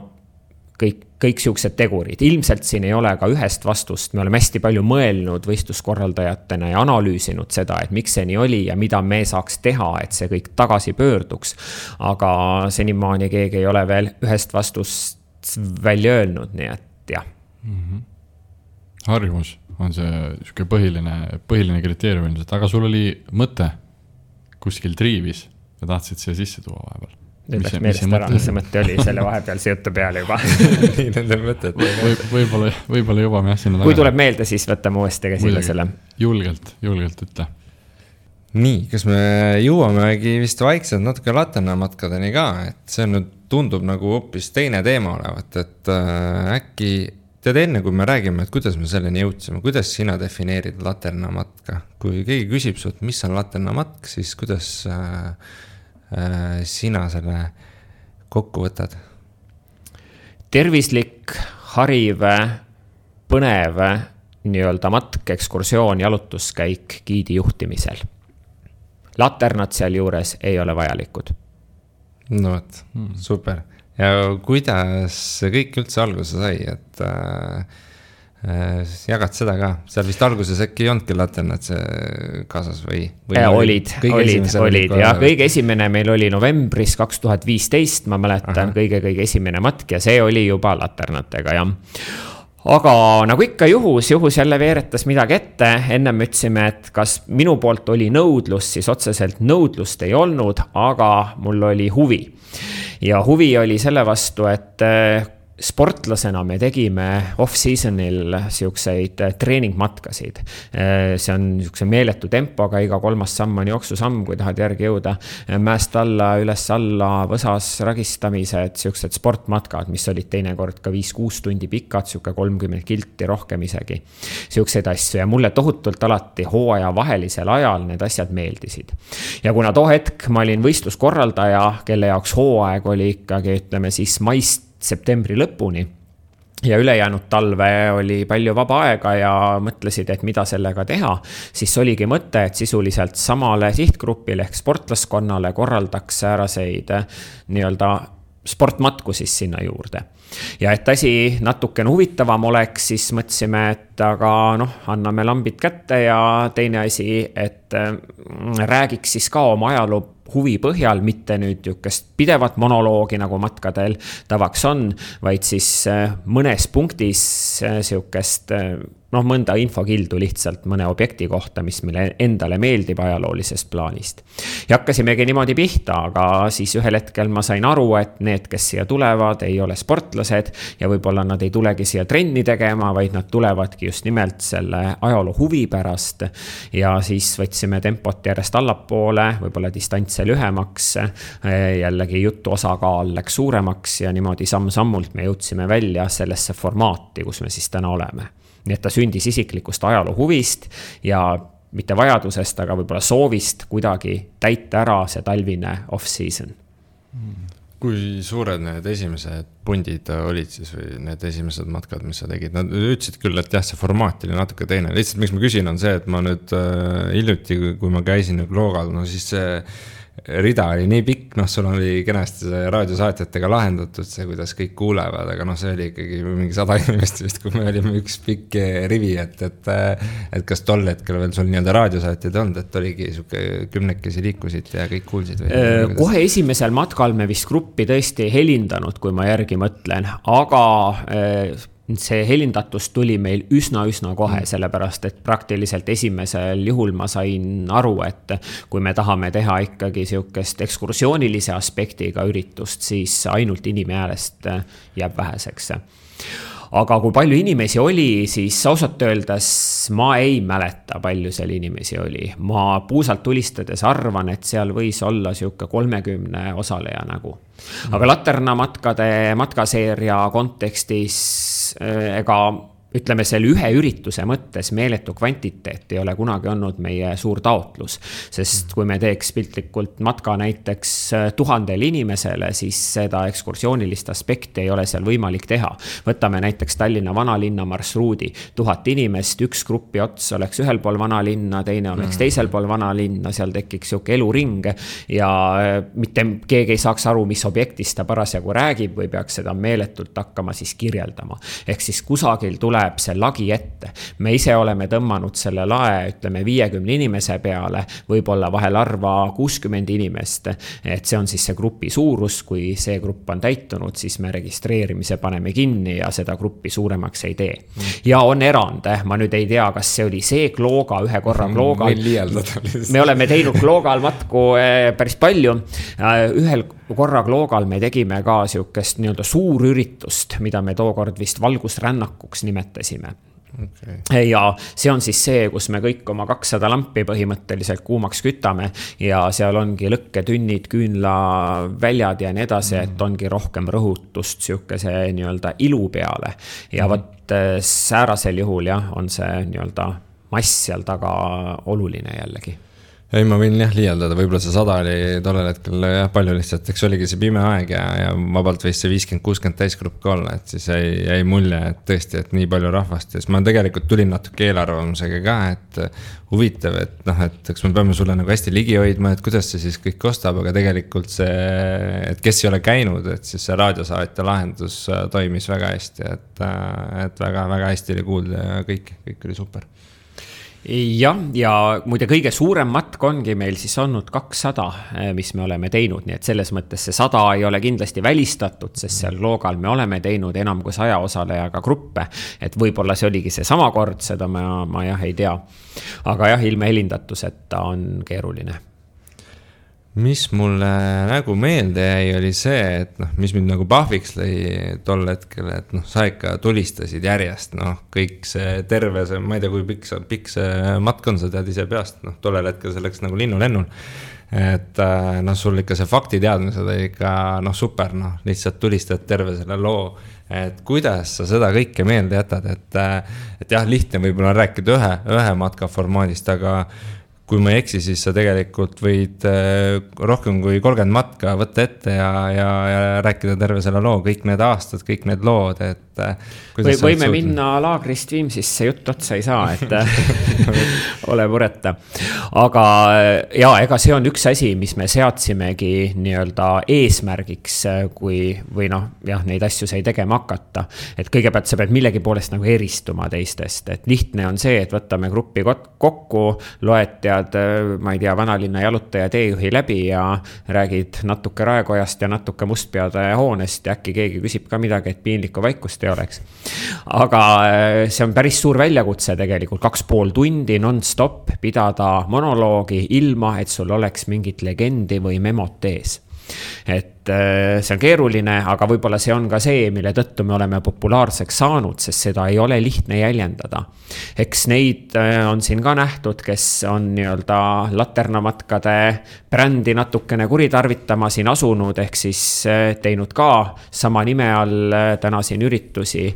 kõik siuksed tegurid. Ilmselt siin ei ole ka ühest vastust. Me oleme hästi palju mõelnud võistluskorraldajatena ja analüüsinud seda, et miks see nii oli ja mida me saaks teha, et see kõik tagasi pöörduks. Aga senimaani keegi ei ole veel ühest vastust välja öelnud, nii et jah.
Harjumus on see põhiline kriteerium, aga sul oli mõte kuskil triivis ja tahtsid siia sisse tuua vahepeal.
Nüüd läks meelest ära, mis see mõte oli selle vahepealse jutu peale juba.
Nii nende mõtted.
Võib-olla jõuame sinna taga.
Kui tuleb meelde, siis võtame uuesti käsile selle.
Julgelt ütle.
Nii, kas me jõuamegi vist vaikselt natuke laternamatkadeni ka, et see nüüd tundub nagu hoopis teine teema olevat, et äkki tead enne, kui me räägime, et kuidas me selleni jõudsime, kuidas sina defineerid laternamatka? Kui keegi küsib sult, mis on laternamatk, siis kuidas sina selle kokku võtad? Tervislik,
hariv, põnev nii-öelda matk, ekskursioon, jalutuskäik giidi juhtimisel. Laternad seal juures ei ole vajalikud.
No võt, super. Ja kuidas see kõik üldse alguse sai, et jagad seda ka? Seal vist alguses äkki ei olnudki laternad see kaasas või
olid ja kõige esimene meil oli novembris 2015, ma mäletan, kõige esimene matk ja see oli juba laternatega, jah. Aga nagu ikka juhus jälle veeretas midagi ette, ennem ütlesime, et kas minu poolt oli nõudlus, siis otseselt nõudlust ei olnud, aga mul oli huvi. Ja huvi oli selle vastu, et sportlasena me tegime off-seasonil siukseid treeningmatkasid. See on siukse meeletu tempoga, iga 3. samm on jooksusamm, kui tahad järgi jõuda. Mäest alla, üles alla, võsas ragistamised, siuksed sportmatkad, mis olid teinekord ka 5-6 tundi pikad, siuke 30 kilti, rohkem isegi. Siukseid asju ja mulle tohutult alati hooaja vahelisel ajal need asjad meeldisid. Ja kuna too hetk ma olin võistluskorraldaja, kelle jaoks hooaeg oli ikkagi, ütleme siis maist septembri lõpuni ja ülejäänud talve oli palju vaba aega ja mõtlesid, et mida sellega teha, siis oligi mõte, et sisuliselt samale sihtgrupile ehk sportlaskonnale korraldaks sääraseid nii-öelda sportmatku siis sinna juurde. Ja et asi natukene huvitavam oleks, siis mõtlesime, et aga anname lambid kätte ja teine asi, et räägiks siis ka oma ajaloo huvi põhjal, mitte nüüd jukest pidevat monoloogi nagu matkadel tavaks on, vaid siis mõnes punktis siukest mõnda infokildu lihtsalt mõne objekti kohta, mis meile endale meeldib ajaloolisest plaanist. Ja hakkasimegi niimoodi pihta, aga siis ühel hetkel ma sain aru, et need, kes siia tulevad, ei ole sportlased ja võib-olla nad ei tulegi siia trenni tegema, vaid nad tulevadki just nimelt selle ajaloo huvi pärast ja siis võtsime tempot järjest allapoole, võib-olla distantse lühemaks, jällegi jutu osakaal läks suuremaks ja niimoodi samm-sammult me jõudsime välja sellesse formaati, kus me siis täna oleme. Nii et ta sündis isiklikust ajaloo huvist ja mitte vajadusest, aga võib-olla soovist kuidagi täita ära see talvine off-season.
Kui suured need esimesed pundid olid siis või need esimesed matkad, mis sa tegid? Nad ütlesid küll, et jah, see formaat oli natuke teine. Lihtsalt miks ma küsin on see, et ma nüüd hiljuti, kui ma käisin Kloogal, siis see rida oli nii pikk, sul oli kenasti raadiosaatjatega lahendatud see, kuidas kõik kuulevad, aga see oli ikkagi mingi 100 inimest vist, kui me olime üks pikk rivi, et kas tol hetkel veel sul nii-öelda raadiosaatjad olnud, et oligi suke 10 liikusid ja kõik kuulsid või?
Kohe esimesel matkal me vist gruppi tõesti helindanud, kui ma järgi mõtlen, aga see helindatus tuli meil üsna kohe, sellepärast, et praktiliselt esimesel juhul ma sain aru, et kui me tahame teha ikkagi siukest ekskursioonilise aspektiga üritust, siis ainult inimhäälest jääb väheseks. Aga kui palju inimesi oli, siis ausalt öeldes ma ei mäleta, palju seal inimesi oli. Ma puusalt tulistades arvan, et seal võis olla siuke 30 osaleja nagu. Aga laternamatkade matkaseeria kontekstis ega ütleme, selle ühe ürituse mõttes meeletu kvantiteet ei ole kunagi olnud meie suur taotlus, sest kui me teeks piltlikult matka näiteks 1000 inimesele, siis seda ekskursioonilist aspekti ei ole seal võimalik teha. Võtame näiteks Tallinna vanalinna marsruudi, 1000 inimest, üks grupi ots oleks ühel pool vanalinna, teine oleks teisel pool vanalinna, seal tekiks siuke eluring ja mitte keegi ei saaks aru, mis objektist ta parasjagu räägib või peaks seda meeletult hakkama siis kirjeldama. Ehk siis kusagil tuleb see lagi ette. Me ise oleme tõmmanud selle lae, ütleme 50 inimese peale, võib-olla vahel arva 60 inimest. Et see on siis see grupi suurus, kui see grupp on täitunud, siis me registreerimise paneme kinni ja seda gruppi suuremaks ei tee. Ja on erand, ma nüüd ei tea, kas see oli see Klooga, ühe korra Kloogal. Me oleme teinud Kloogal matku päris palju. Ühel korra Kloogal me tegime ka siukest nii-öelda suurüritust, mida me tookord vist valgusrännakuks nimetasime. Okay. Ja see on siis see, kus me kõik oma 200 lampi põhimõtteliselt kuumaks kütame ja seal ongi lõkketünnid, küünlaväljad ja nii edasi, et ongi rohkem rõhutust siukese nii-öelda ilu peale. Ja võt säärasel juhul on see nii-öelda mass seal taga oluline jällegi.
Ei, ma võin liialdada, võib-olla see 100 oli tollel hetkel palju lihtsalt, eks oligi see pime aeg ja vabalt võis see 50-60 täisgrupp ka olla, et siis jäi mulje, et tõesti, et nii palju rahvast. Ja siis ma tegelikult tulin natuke eelarvamusega ka, et huvitav, et eks me peame sulle nagu hästi ligi hoidma, et kuidas see siis kõik kostab, aga tegelikult see, et kes ei ole käinud, et siis see raadiosaatja lahendus toimis väga hästi, et väga hästi oli kuulda ja kõik oli super.
Ja muide kõige suurem matk ongi meil siis olnud 200, mis me oleme teinud, nii et selles mõttes see 100 ei ole kindlasti välistatud, sest seal Kloogal me oleme teinud enam kui 100 osalejaga gruppe, et võib-olla see oligi see sama kord, seda ma ei tea. Aga ilme helindatuseta on keeruline.
Mis mulle nagu meelde jäi, oli see, et mis mind nagu pahviks lõi tol hetkel, et sa ikka tulistasid järjest, kõik see terve, ma ei tea, kui pikk see matk on, sa tead ise peast, tollel hetkel selleks nagu linnulennul, et sul ikka see faktiteadmised oli ikka super, lihtsalt tulistad terve selle loo, et kuidas sa seda kõike meelde jätad, et lihtne võib-olla rääkida ühe matka formaadist, aga kui ma ei eksi, siis sa tegelikult võid rohkem kui 30 matka võtta ette ja rääkida terve selle loo, kõik need aastad, kõik need lood, et
võime minna Laagrist Viimsisse, jutt otsa ei saa, et ole mureta. Aga ega see on üks asi, mis me seadsimegi nii-öelda eesmärgiks, või neid asju sai tegema hakata. Et kõigepealt sa pead millegi poolest nagu eristuma teistest, et lihtne on see, et võtame gruppi kokku, loetjad, ma ei tea, vanalinna jalutaja teejuhi läbi ja räägid natuke Raekojast ja natuke Mustpeade hoonest ja äkki keegi küsib ka midagi, et piinlikku vaikust ei oleks. Aga see on päris suur väljakutse tegelikult, 2,5 tundi non-stop pidada monoloogi ilma, et sul oleks mingit legendi või memot ees. Et see on keeruline, aga võib-olla see on ka see, mille tõttu me oleme populaarseks saanud, sest seda ei ole lihtne jäljendada. Eks neid on siin ka nähtud, kes on nii-öelda laternamatkade brändi natukene kuritarvitama siin asunud, ehk siis teinud ka sama nime all täna siin üritusi.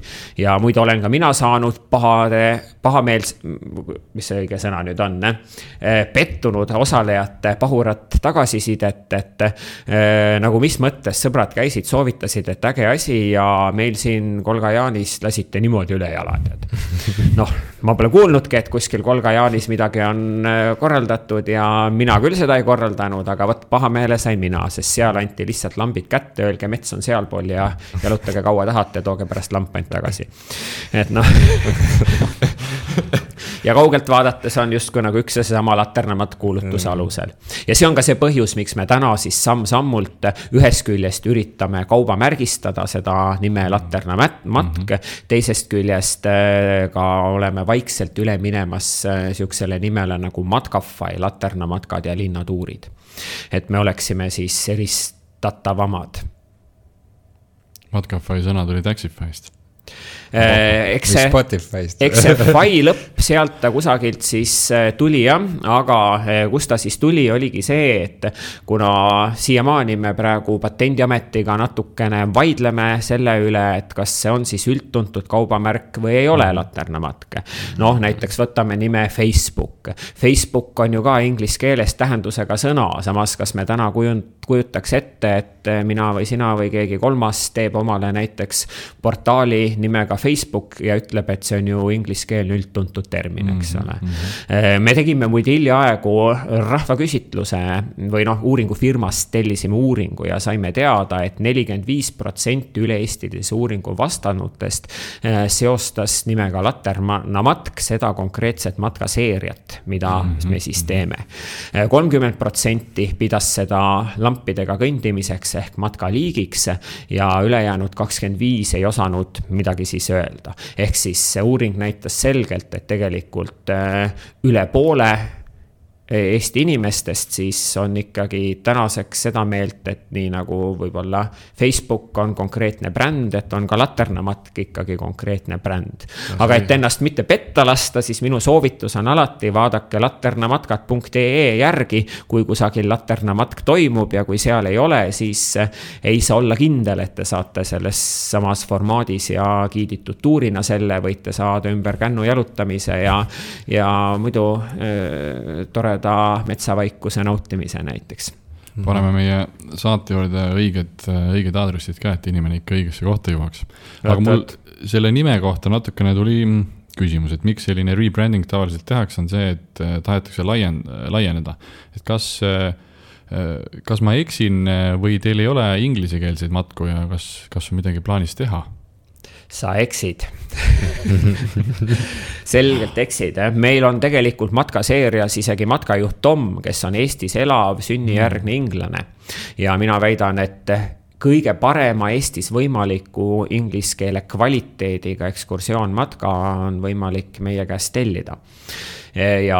Ja muidu olen ka mina saanud pahameels, mis see õige sõna nüüd on, pettunud osalejate pahurat tagasisidet, et nagu mis mõttes sõbrad käisid, soovitasid, et äge asi ja meil siin Kolga-Jaanis lasite niimoodi üle jalad. Ma pole kuulnudki, et kuskil Kolga-Jaanis midagi on korraldatud ja mina küll seda ei korraldanud, aga pahameele sain mina, sest seal anti lihtsalt lambid kätte, öelge mets on sealpool ja jalutage kaua tahate, tooge pärast lampant tagasi. Et ja kaugelt vaadates on justkui nagu üks ja seesama laternamat kuulutuse alusel. Ja see on ka see põhjus, miks me täna siis samm-sammult ühest küljest üritame kauba märgistada seda nime laternamatk, teisest küljest ka oleme vaikselt üle minemas siuksele nimele nagu Matkafai, laternamatkad ja linnatuurid. Et me oleksime siis eristatavamad.
Matkafai sõna tuli Taxify'st.
Eks see fai lõpp sealt ta kusagilt siis tuli jah, aga kust ta siis tuli, oligi see, et kuna siiamaani me praegu Patendiametiga natukene vaidleme selle üle, et kas see on siis üldtuntud kaubamärk või ei ole laternamatk. Noh, näiteks võtame nime Facebook. Facebook on ju ka inglise keeles tähendusega sõna, samas kas me täna kujutaks ette, et mina või sina või keegi kolmas teeb omale näiteks portaali nimega Facebook ja ütleb, et see on ju ingliskeelne üldtuntud termin, eks ole. Me tegime muide hiljaaegu rahvaküsitluse või uuringufirmast tellisime uuringu ja saime teada, et 45% üle-eestilise uuringu vastanutest seostas nimega laternamatk seda konkreetset matkaseeriat, mida me siis teeme. 30% pidas seda lampidega kõndimiseks ehk matkaliigiks ja ülejäänud 25% ei osanud midagi siis öelda. Ehk siis see uuring näitas selgelt, et tegelikult üle poole Eesti inimestest siis on ikkagi tänaseks seda meelt, et nii nagu võib-olla Facebook on konkreetne bränd, et on ka laternamatk ikkagi konkreetne bränd. Aga et ennast mitte petta lasta, siis minu soovitus on alati vaadake laternamatkat.ee järgi, kui kusagil laternamatk toimub ja kui seal ei ole, siis ei saa olla kindel, et te saate selles samas formaadis ja kiiditud tuurina selle, võite saada ümber kännu jalutamise ja muidu tore metsavaikuse nautimise näiteks.
Paneme meie saate juurde õiged aadressid ka, et inimene ikka õigesse kohta jõuaks. Aga mul selle nime kohta natukene tuli küsimus, et miks selline rebranding tavaliselt tehakse, on see, et tahetakse laieneda. Et kas ma eksin või teil ei ole inglisekeelseid matku ja kas on midagi plaanis teha?
Sa eksid. Selgelt eksid. Meil on tegelikult matkaseerias isegi matkajuht Tom, kes on Eestis elav sünnijärgne inglane. Ja mina väidan, et kõige parema Eestis võimaliku inglise keele kvaliteediga ekskursioonmatka on võimalik meie käest tellida. Ja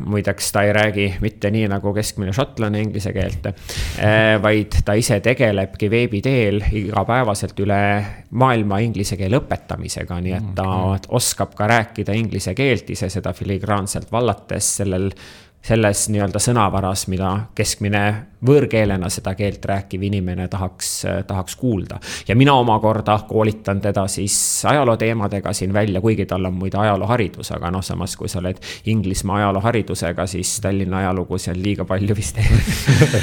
muideks ta ei räägi mitte nii nagu keskmine šotlane inglise keelt, vaid ta ise tegelebki veebiteel igapäevaselt üle maailma inglise keele õpetamisega, nii et ta oskab ka rääkida inglise keelt ise seda filigraanselt vallates selles nii-öelda sõnavaras, mida keskmine võõrkeelena seda keelt rääkiv inimene tahaks kuulda. Ja mina omakorda koolitan teda siis ajaloo teemadega siin välja, kuigi tal on muide ajalooharidus, aga samas kui sa oled Inglismaa ajalooharidusega, siis Tallinna ajalugu seal liiga palju vist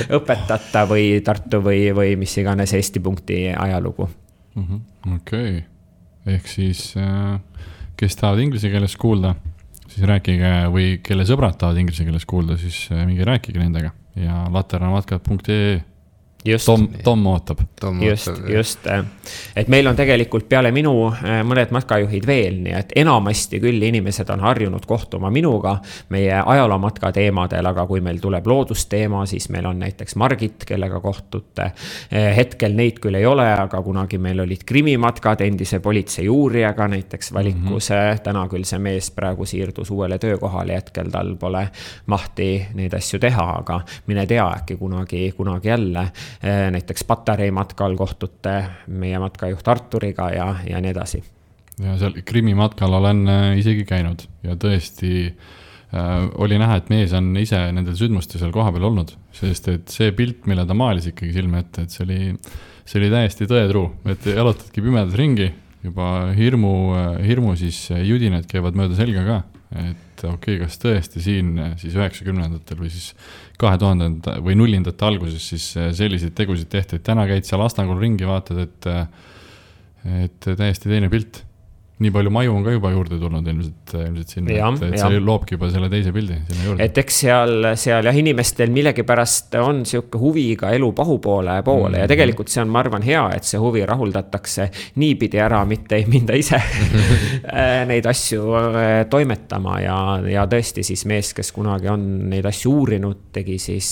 õpetata või Tartu või mis iganes Eesti punkti ajalugu.
Okei. Ehk siis, kes tahavad inglise keeles kuulda, siis rääkige või kelle sõbrad tahavad inglise keeles kuulda, siis mingi rääkige nendega ja laternamatkat.ee. Tom ootab.
Just. Et meil on tegelikult peale minu mõned matkajuhid veel, nii et enamasti küll inimesed on harjunud kohtuma minuga meie ajaloomatka teemadel, aga kui meil tuleb loodusteema, siis meil on näiteks Margit, kellega kohtute. Hetkel neid küll ei ole, aga kunagi meil olid krimimatkad endise politsei uurijaga näiteks valikus. Täna küll see mees praegu siirdus uuele töökohale, hetkel tal pole mahti neid asju teha, aga mine tea äkki kunagi jälle. Näiteks Patarei matkal kohtute meie matkajuht Arturiga ja nii edasi.
Ja seal Krimi matkal olen isegi käinud ja tõesti oli näha, et mees on ise nendel sündmustel seal koha peal olnud, sest et see pilt, mille ta maalis ikkagi silme ette, et see oli täiesti tõetruu, et jalutadki pimedas ringi, juba hirmu siis judinad käivad mööda selga ka, et kas tõesti siin siis 90-ndatel või siis 2000 või 0-ndate alguses siis selliseid tegusid tehti, et täna käid seal Astangul ringi, vaatad, et täiesti teine pilt. Nii palju maju on ka juba juurde tulnud ilmselt sinna, et see loobki juba selle teise pildi sinna juurde.
Et eks seal inimestel millegipärast on siuke huvi ka elu pahupoole ja tegelikult see on, ma arvan, hea, et see huvi rahuldatakse niipidi ära, mitte ei minda ise neid asju toimetama ja tõesti siis mees, kes kunagi on neid asju uurinud, tegi siis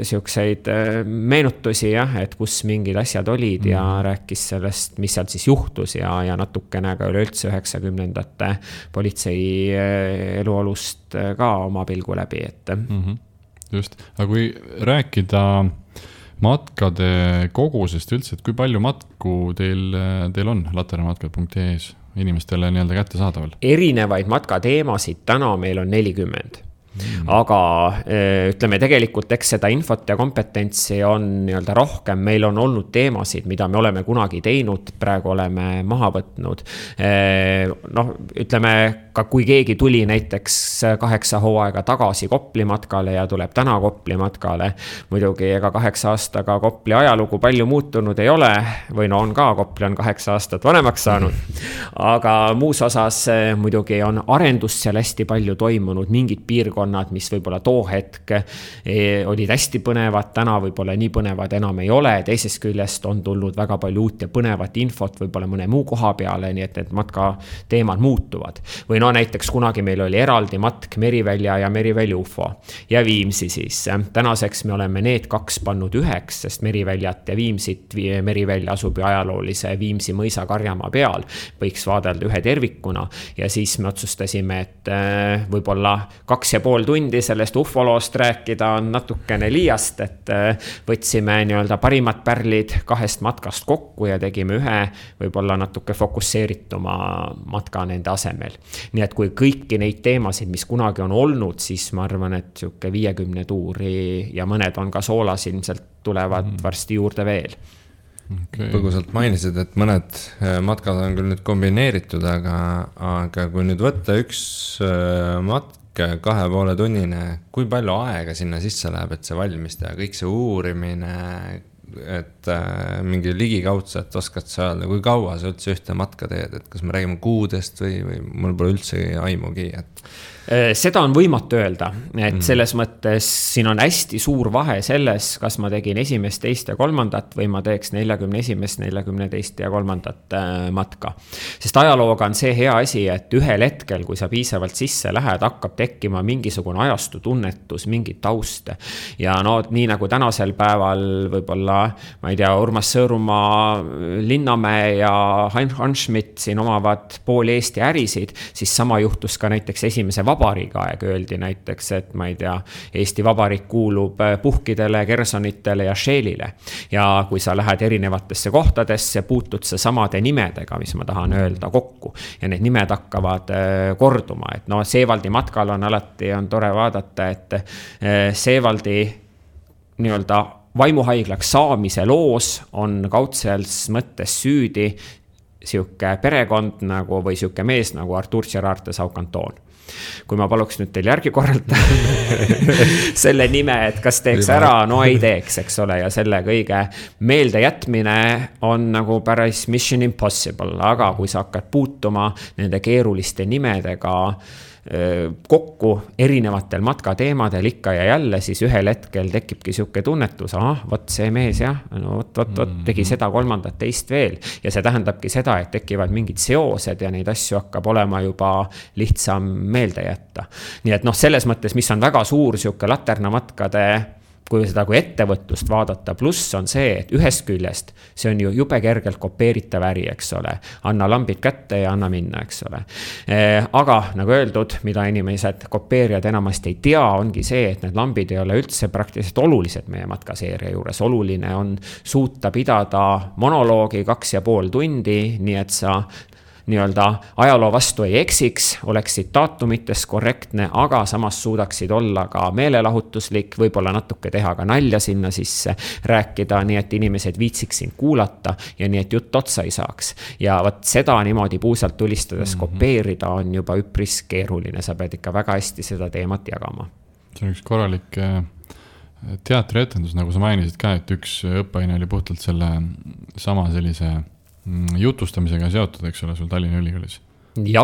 siukseid meenutusi, et kus mingid asjad olid ja rääkis sellest, mis seal siis juhtus ja natukene ka üleüldse 90-ndate politsei eluolust ka oma pilgu läbi.
Just, aga kui rääkida matkade kogusest üldse, et kui palju matku teil on laternamatkad.ee-s inimestele nii-öelda kättesaadaval?
Erinevaid matkateemasid täna meil on 40. Aga ütleme tegelikult, eks seda infot ja kompetentsi on nii-öelda rohkem, meil on olnud teemasid, mida me oleme kunagi teinud, praegu oleme maha võtnud. Noh, ütleme, ka kui keegi tuli näiteks 8 hooaega tagasi Kopli matkale ja tuleb täna Kopli matkale, muidugi ega 8 aastaga Kopli ajalugu palju muutunud ei ole, või no on ka, Kopli on 8 aastat vanemaks saanud, aga muus osas muidugi on arendus seal hästi palju toimunud, mingid piirkonnad, mis võib-olla too hetk olid hästi põnevad, täna võib-olla nii põnevad enam ei ole, teisest küljest on tulnud väga palju uut ja põnevat infot võib-olla mõne muu koha peale, nii et need matka teemad muutuvad. Või no näiteks kunagi meil oli eraldi matk Merivälja ja Merivälja UFO ja Viimsi siis. Tänaseks me oleme need 2 pannud üheks, sest Meriväljat ja Viimsit, Merivälja asub ju ajaloolise Viimsi mõisa Karjamaa peal, võiks vaadelda ühe tervikuna ja siis me otsustasime, et võib-olla 2,5 tundi sellest ufoloost rääkida on natukene liiast, et võtsime nii-öelda parimad pärlid 2 matkast kokku ja tegime ühe võib-olla natuke fokusseerituma matka nende asemel. Nii et kui kõiki neid teemasid, mis kunagi on olnud, siis ma arvan, et siuke 50 tuuri ja mõned on ka soolas, ilmselt tulevad varsti juurde veel.
Okay. Põgusalt mainisid, et mõned matkad on küll nüüd kombineeritud, aga kui nüüd võtta üks matk 2,5 tunnine, kui palju aega sinna sisse läheb, et see valmis teha, kõik see uurimine, et mingi ligikaudselt oskad sa öelda, kui kaua sa üldse ühte matka teed, et kas me räägime kuudest või mul pole üldse aimugi, et
seda on võimatu öelda, et selles mõttes siin on hästi suur vahe selles, kas ma tegin 1., 2. ja 3. või ma teeks 41., 42. ja 3. matka. Sest ajalooga on see hea asi, et ühel hetkel, kui sa piisavalt sisse lähed, hakkab tekkima mingisugune ajastu tunnetus, mingi taust. Ja no nii nagu tänasel päeval võib-olla, ma ei tea, Urmas Sõõrumaa, Linnamäe ja Hans Schmidt siin omavad pool Eesti ärisid, siis sama juhtus ka näiteks esimese Vabariigi aeg, öeldi näiteks, et ma ei tea, Eesti Vabariik kuulub Puhkidele, Kersonitele ja Shellile. Ja kui sa lähed erinevatesse kohtadesse, puutud sa samade nimedega, mis ma tahan öelda, kokku. Ja need nimed hakkavad korduma. Et no Seevaldi matkal on alati on tore vaadata, et Seevaldi nii-öelda vaimuhaiglaks saamise loos on kaudsels mõttes süüdi siuke perekond nagu, või siuke mees nagu Artur Gerard de Saucanton. Kui ma paluks nüüd teil järgi korralda selle nime, et kas teeks ära, no ei teeks, eks ole, ja selle kõige meelde jätmine on nagu päris mission impossible, aga kui sa hakkad puutuma nende keeruliste nimedega kokku erinevatel matkateemadel ikka ja jälle, siis ühel hetkel tekibki siuke tunnetus, võt see mees jah, no võt, tegi seda 3. teist veel ja see tähendabki seda, et tekivad mingid seosed ja neid asju hakkab olema juba lihtsam meelde jätta. Nii et noh, selles mõttes, mis on väga suur siuke laternamatkade kui seda kui ettevõtlust vaadata, pluss on see, et ühest küljest see on ju jube kergelt kopeeritav äri, eks ole. Anna lambid kätte ja anna minna, eks ole. Aga nagu öeldud, mida inimesed kopeerijad enamasti ei tea, ongi see, et need lambid ei ole üldse praktiliselt olulised meie matkaseeria juures. Oluline on suuta pidada monoloogi 2,5 tundi, nii et sa nii-öelda ajaloo vastu ei eksiks, oleksid daatumites korrektne, aga samas suudaksid olla ka meelelahutuslik, võib-olla natuke teha ka nalja sinna sisse, rääkida, nii et inimesed viitsiks sind kuulata ja nii et jutt otsa ei saaks. Ja võt seda niimoodi puusalt tulistades kopeerida on juba üpris keeruline, sa pead ikka väga hästi seda teemat jagama.
See on üks korralik teatrietendus, nagu sa mainisid ka, et üks õppeaine oli puhtalt selle sama sellise jutustamisega seotud, eks ole, sul Tallinna Ülikoolis.
Ja,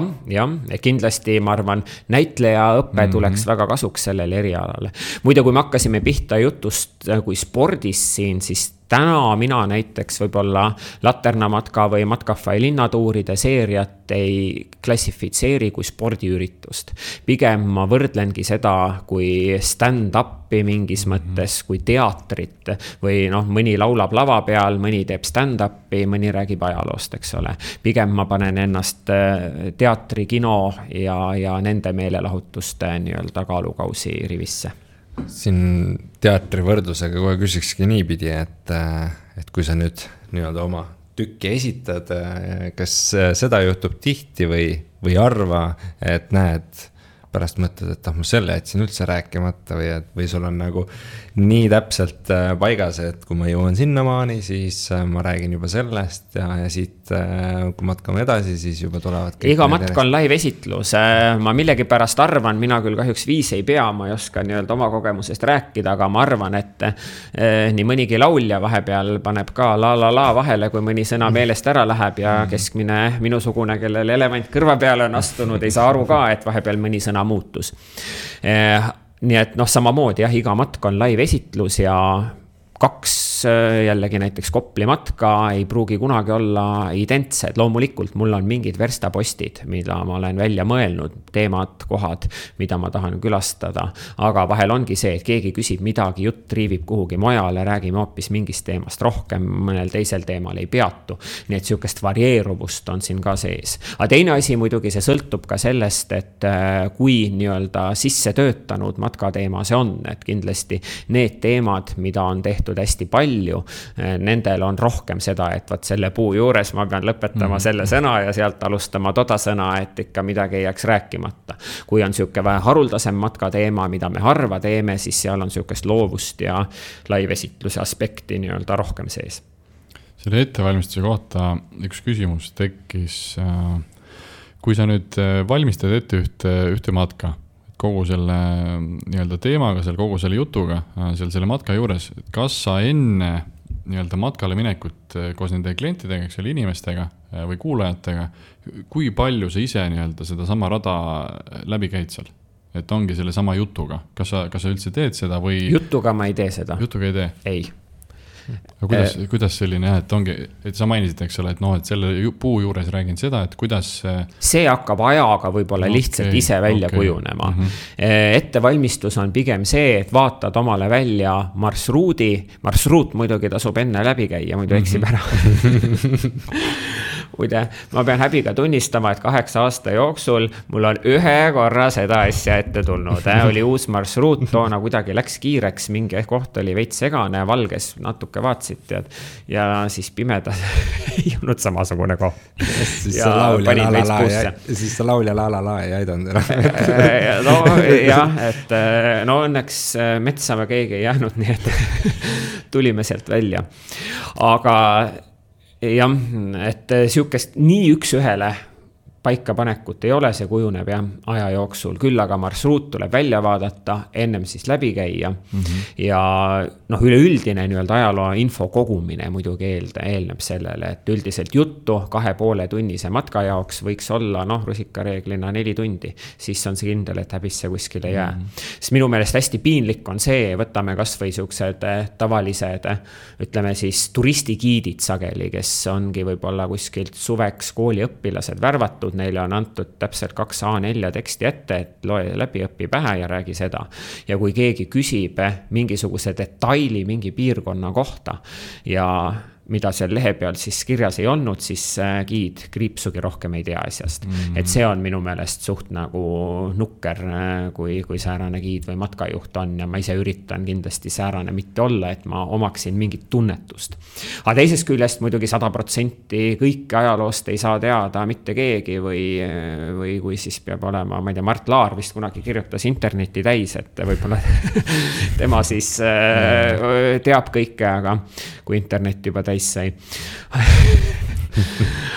kindlasti ma arvan, näitleja õppe tuleks väga kasuks sellele erialale. Muide, kui me hakkasime pihta jutust kui spordis siin, siis täna mina näiteks võib-olla Laternamatka või Matkafai linnatuuride seeriat ei klassifitseeri kui spordiüritust. Pigem ma võrdlengi seda kui stand-upi mingis mõttes, kui teatrit või noh, mõni laulab lava peal, mõni teeb stand-upi, mõni räägib ajaloost, eks ole. Pigem ma panen ennast teatri, kino ja nende meelelahutuste nii-öelda kaalukausi rivisse.
siin teatri võrdlusega kohe küsikski niipidi, et kui sa nüüd nii-öelda oma tükki esitad, kas seda juhtub tihti või arva, et näed, pärast mõtled, et ma selle jätsin üldse rääkimata või sul on nagu nii täpselt paigas, et kui ma jõuan sinnamaani, siis ma räägin juba sellest ja siit, kui matkame edasi, siis juba tulevad
iga matk on live esitlus. Ma millegi pärast arvan, mina küll kahjuks viis ei pea, ma ei oska nii-öelda oma kogemusest rääkida, aga ma arvan, et nii mõnigi laulja vahepeal paneb ka la vahele, kui mõni sõna meelest ära läheb ja keskmine minusugune, kellel elevant kõrva peale on astunud, ei saa aru ka, et vahepeal mõni sõna muutus. Nii et samamoodi jah, iga matk on live esitlus ja 2 jällegi näiteks Kopli matka ei pruugi kunagi olla identsed. Loomulikult mul on mingid verstapostid, mida ma olen välja mõelnud, teemad, kohad, mida ma tahan külastada. Aga vahel ongi see, et keegi küsib midagi, jutt triivib kuhugi mujale, räägime hoopis mingist teemast rohkem, mõnel teisel teemal ei peatu. Nii et sihukest varieeruvust on siin ka sees. Aga teine asi muidugi see sõltub ka sellest, et kui nii-öelda sisse töötanud matkateema see on, et kindlasti need teemad, mida on tehtud hästi palju, nendel on rohkem seda, et võt selle puu juures ma pean lõpetama selle sõna ja sealt alustama toda sõna, et ikka midagi ei jääks rääkimata. Kui on sihuke vähe haruldasem matkateema, mida me harva teeme, siis seal on sihukest loovust ja live-esitluse aspekti nii-öelda rohkem sees.
Selle ettevalmistuse kohta üks küsimus tekkis, kui sa nüüd valmistad ette ühte matka, kogu selle nii-öelda teemaga, kogu selle jutuga, selle matka juures, kas sa enne nii-öelda matkale minekut koos nende klientidega, selle inimestega või kuulajatega, kui palju sa ise nii-öelda seda sama rada läbi käid seal? Et ongi selle sama jutuga. Kas sa üldse teed seda või... Jutuga
ma ei tee seda.
Jutuga ei tee?
Ei.
Kuidas selline, et ongi, et sa mainisid, eks ole, et selle puu juures räägin seda, et kuidas...
See hakkab ajaga võib-olla lihtsalt ise välja kujunema. Ettevalmistus on pigem see, et vaatad omale välja marsruut muidugi tasub enne läbi käia, muidu eksib ära. Ma pean häbiga tunnistama, et 8 aasta jooksul mul on ühe korra seda asja ette tulnud. Oli uus marsruut, toona kuidagi läks kiireks, mingi koht oli veits segane, valges natuke vaatsid ja siis pimedas ei olnud samasugune koht.
Siis sa laulja la ei aidanud ära.
No jah, et õnneks metsa me keegi ei jäänud, nii et tulime sealt välja. Aga jah, et sihukest nii üks ühele paikapanekut ei ole, see kujuneb aja jooksul. Küll aga marsruut tuleb välja vaadata, ennem siis läbi käia. Ja üleüldine nii-öelda ajaloo info kogumine muidugi eelneb sellele, et üldiselt juttu 2,5 tunnise matka jaoks võiks olla rusikareeglina 4 tundi. Siis on see kindel, et häbisse kuskile jää. Sest minu meelest hästi piinlik on see, võtame kas või siuksed tavalised, ütleme siis turistigiidid sageli, kes ongi võib-olla kuskilt suveks kooliõpilased värvatud, neile on antud täpselt 2 A4 teksti ette, et loe läbi, õpi pähe ja räägi seda. Ja kui keegi küsib mingisuguse detaili mingi piirkonna kohta ja mida seal lehe peal siis kirjas ei olnud, siis giid kriipsugi rohkem ei tea asjast. Et see on minu meelest suht nagu nukker, kui säärane giid või matkajuht on ja ma ise üritan kindlasti säärane mitte olla, et ma omaksin mingit tunnetust. Aga teisest küljest muidugi 100% kõike ajaloost ei saa teada mitte keegi või kui siis peab olema, ma ei tea, Mart Laar vist kunagi kirjutas interneti täis, et võib-olla tema siis teab kõike, aga kui internet juba täis sai.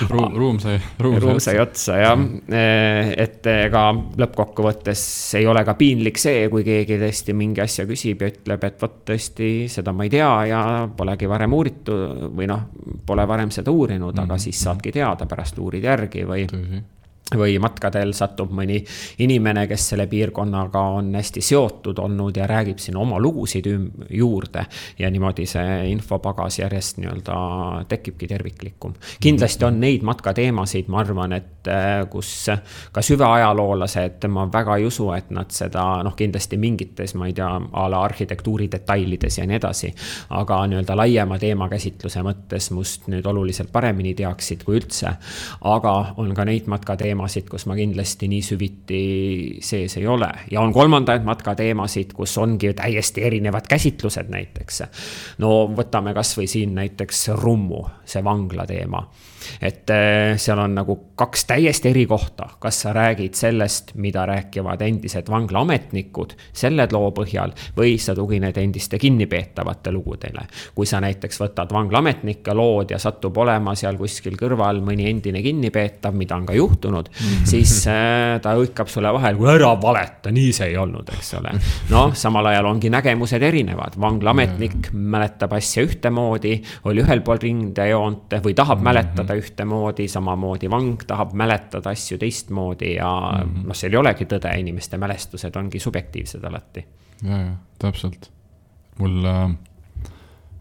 ruum sai
otsa ja et ega lõppkokkuvõttes ei ole ka piinlik see, kui keegi tõesti mingi asja küsib ja ütleb, et võt tõesti seda ma ei tea ja polegi varem uuritud või pole varem seda uurinud, aga siis saadki teada, pärast uurid järgi või matkadel satub mõni inimene, kes selle piirkonnaga on hästi seotud olnud ja räägib siin oma lugusid juurde ja niimoodi see infopagas järjest nii-öelda tekibki terviklikum. Kindlasti on neid matkateemasid, ma arvan, et kus ka süvajaloolased, ma väga ei usu, et nad seda, kindlasti mingites, ma ei tea, ala arhitektuuri detailides ja nii edasi, aga nii-öelda laiema teema käsitluse mõttes must nüüd oluliselt paremini teaksid kui üldse, aga on ka neid matkateemasid, matkateemasid, kus ma kindlasti nii süviti sees ei ole. Ja on kolmandaid matkateemasid, kus ongi täiesti erinevad käsitlused näiteks. No võtame kas või siin näiteks Rummu, see vangla teema. Et seal on nagu 2 täiesti eri kohta, kas sa räägid sellest, mida rääkivad endised vanglaametnikud selle loo põhjal või sa tugined endiste kinnipeetavate lugudele. Kui sa näiteks võtad vanglaametnike lood ja satub olema seal kuskil kõrval mõni endine kinnipeetav, mida on ka juhtunud, siis ta hõikab sulle vahel, kui ära valeta, nii see ei olnud, eks ole. No, samal ajal ongi nägemused erinevad. Vanglaametnik mäletab asja ühtemoodi, oli ühel pool rindejoont või tahab mäletada ühtemoodi, samamoodi vang tahab mäletada asju teistmoodi ja seal ei olegi tõde, inimeste mälestused ongi subjektiivsed alati.
Ja, täpselt. Mul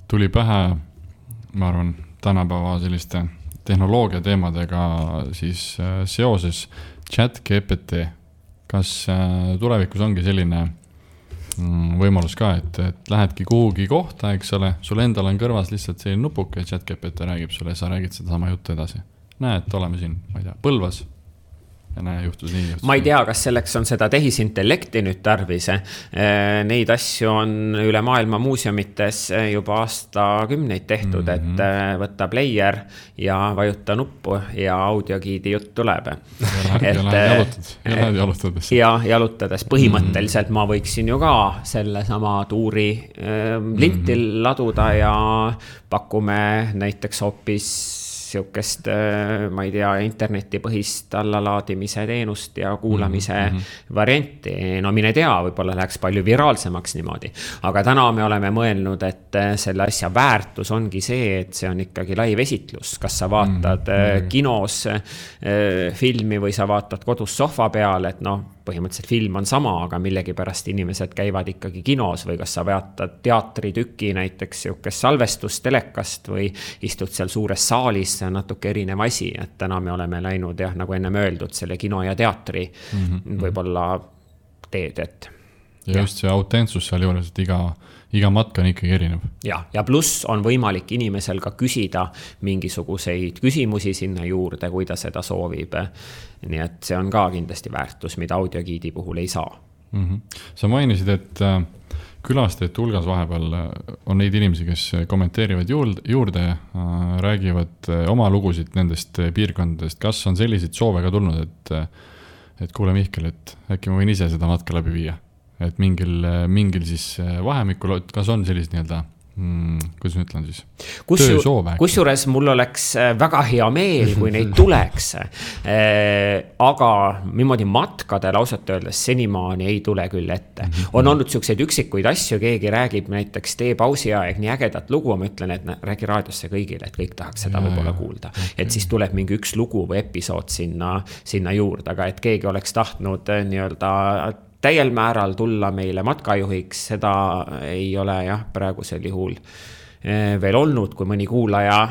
tuli pähe, ma arvan, tänapäeva selliste tehnoloogia teemadega siis seoses ChatGPT. Kas tulevikus ongi selline võimalus ka, et lähedki kuhugi kohta, eks ole, sul endal on kõrvas lihtsalt selline nupuke, ChatGPT räägib sulle ja sa räägid seda sama juttu edasi. Näed, oleme siin, ma ei tea, Põlvas ja näe, juhtus nii.
Ma ei tea, kas selleks on seda tehisintellekti nüüd tarvis. Neid asju on üle maailma muuseumites juba aastakümneid tehtud, et võtta player ja vajuta nuppu ja audiogiidi jutt tuleb.
Ja jalutades.
Ja jalutades. Põhimõtteliselt ma võiksin ju ka selle sama tuuri lintil laduda ja pakume näiteks hoopis siukest, ma ei tea, internetipõhist allalaadimise teenust ja kuulamise varianti. No mine tea, võib-olla läheks palju viraalsemaks niimoodi. Aga täna me oleme mõelnud, et selle asja väärtus ongi see, et see on ikkagi live-esitlus. Kas sa vaatad kinos filmi või sa vaatad kodus sohva peal, et põhimõtteliselt film on sama, aga millegi pärast inimesed käivad ikkagi kinos või kas sa vaatad teatritüki näiteks siukest salvestust telekast või istud seal suures saalis, see on natuke erinev asi, et täna me oleme läinud nagu enne öeldud selle kino ja teatri võib-olla teed, et
ja just see autentsus seal juures, et iga matka on ikkagi erinev.
Ja pluss on võimalik inimesel ka küsida mingisuguseid küsimusi sinna juurde, kui ta seda soovib. Nii et see on ka kindlasti väärtus, mida audiogiidi puhul ei saa.
Sa mainisid, et külastajate hulgas vahepeal on neid inimesi, kes kommenteerivad juurde, räägivad oma lugusid nendest piirkondadest. Kas on selliseid soove ka tulnud, et kuule Mihkel, et äkki ma võin ise seda matka läbi viia? Et mingil siis vahemikul, kas on sellised nii-öelda, kuidas ma ütlen siis, töösoove?
Kusjuures mul oleks väga hea meel, kui neid tuleks, aga niimoodi matkadel ausalt öeldes senimaani ei tule küll ette. On olnud siukseid üksikuid asju, keegi räägib näiteks tee pausi aeg nii ägedat lugu, ma ütlen, et räägi raadiosse kõigile, et kõik tahaks seda võib-olla kuulda. Et siis tuleb mingi üks lugu või episood sinna juurde, aga et keegi oleks tahtnud nii-öelda täiel määral tulla meile matkajuhiks, seda ei ole praegusel juhul veel olnud, kui mõni kuulaja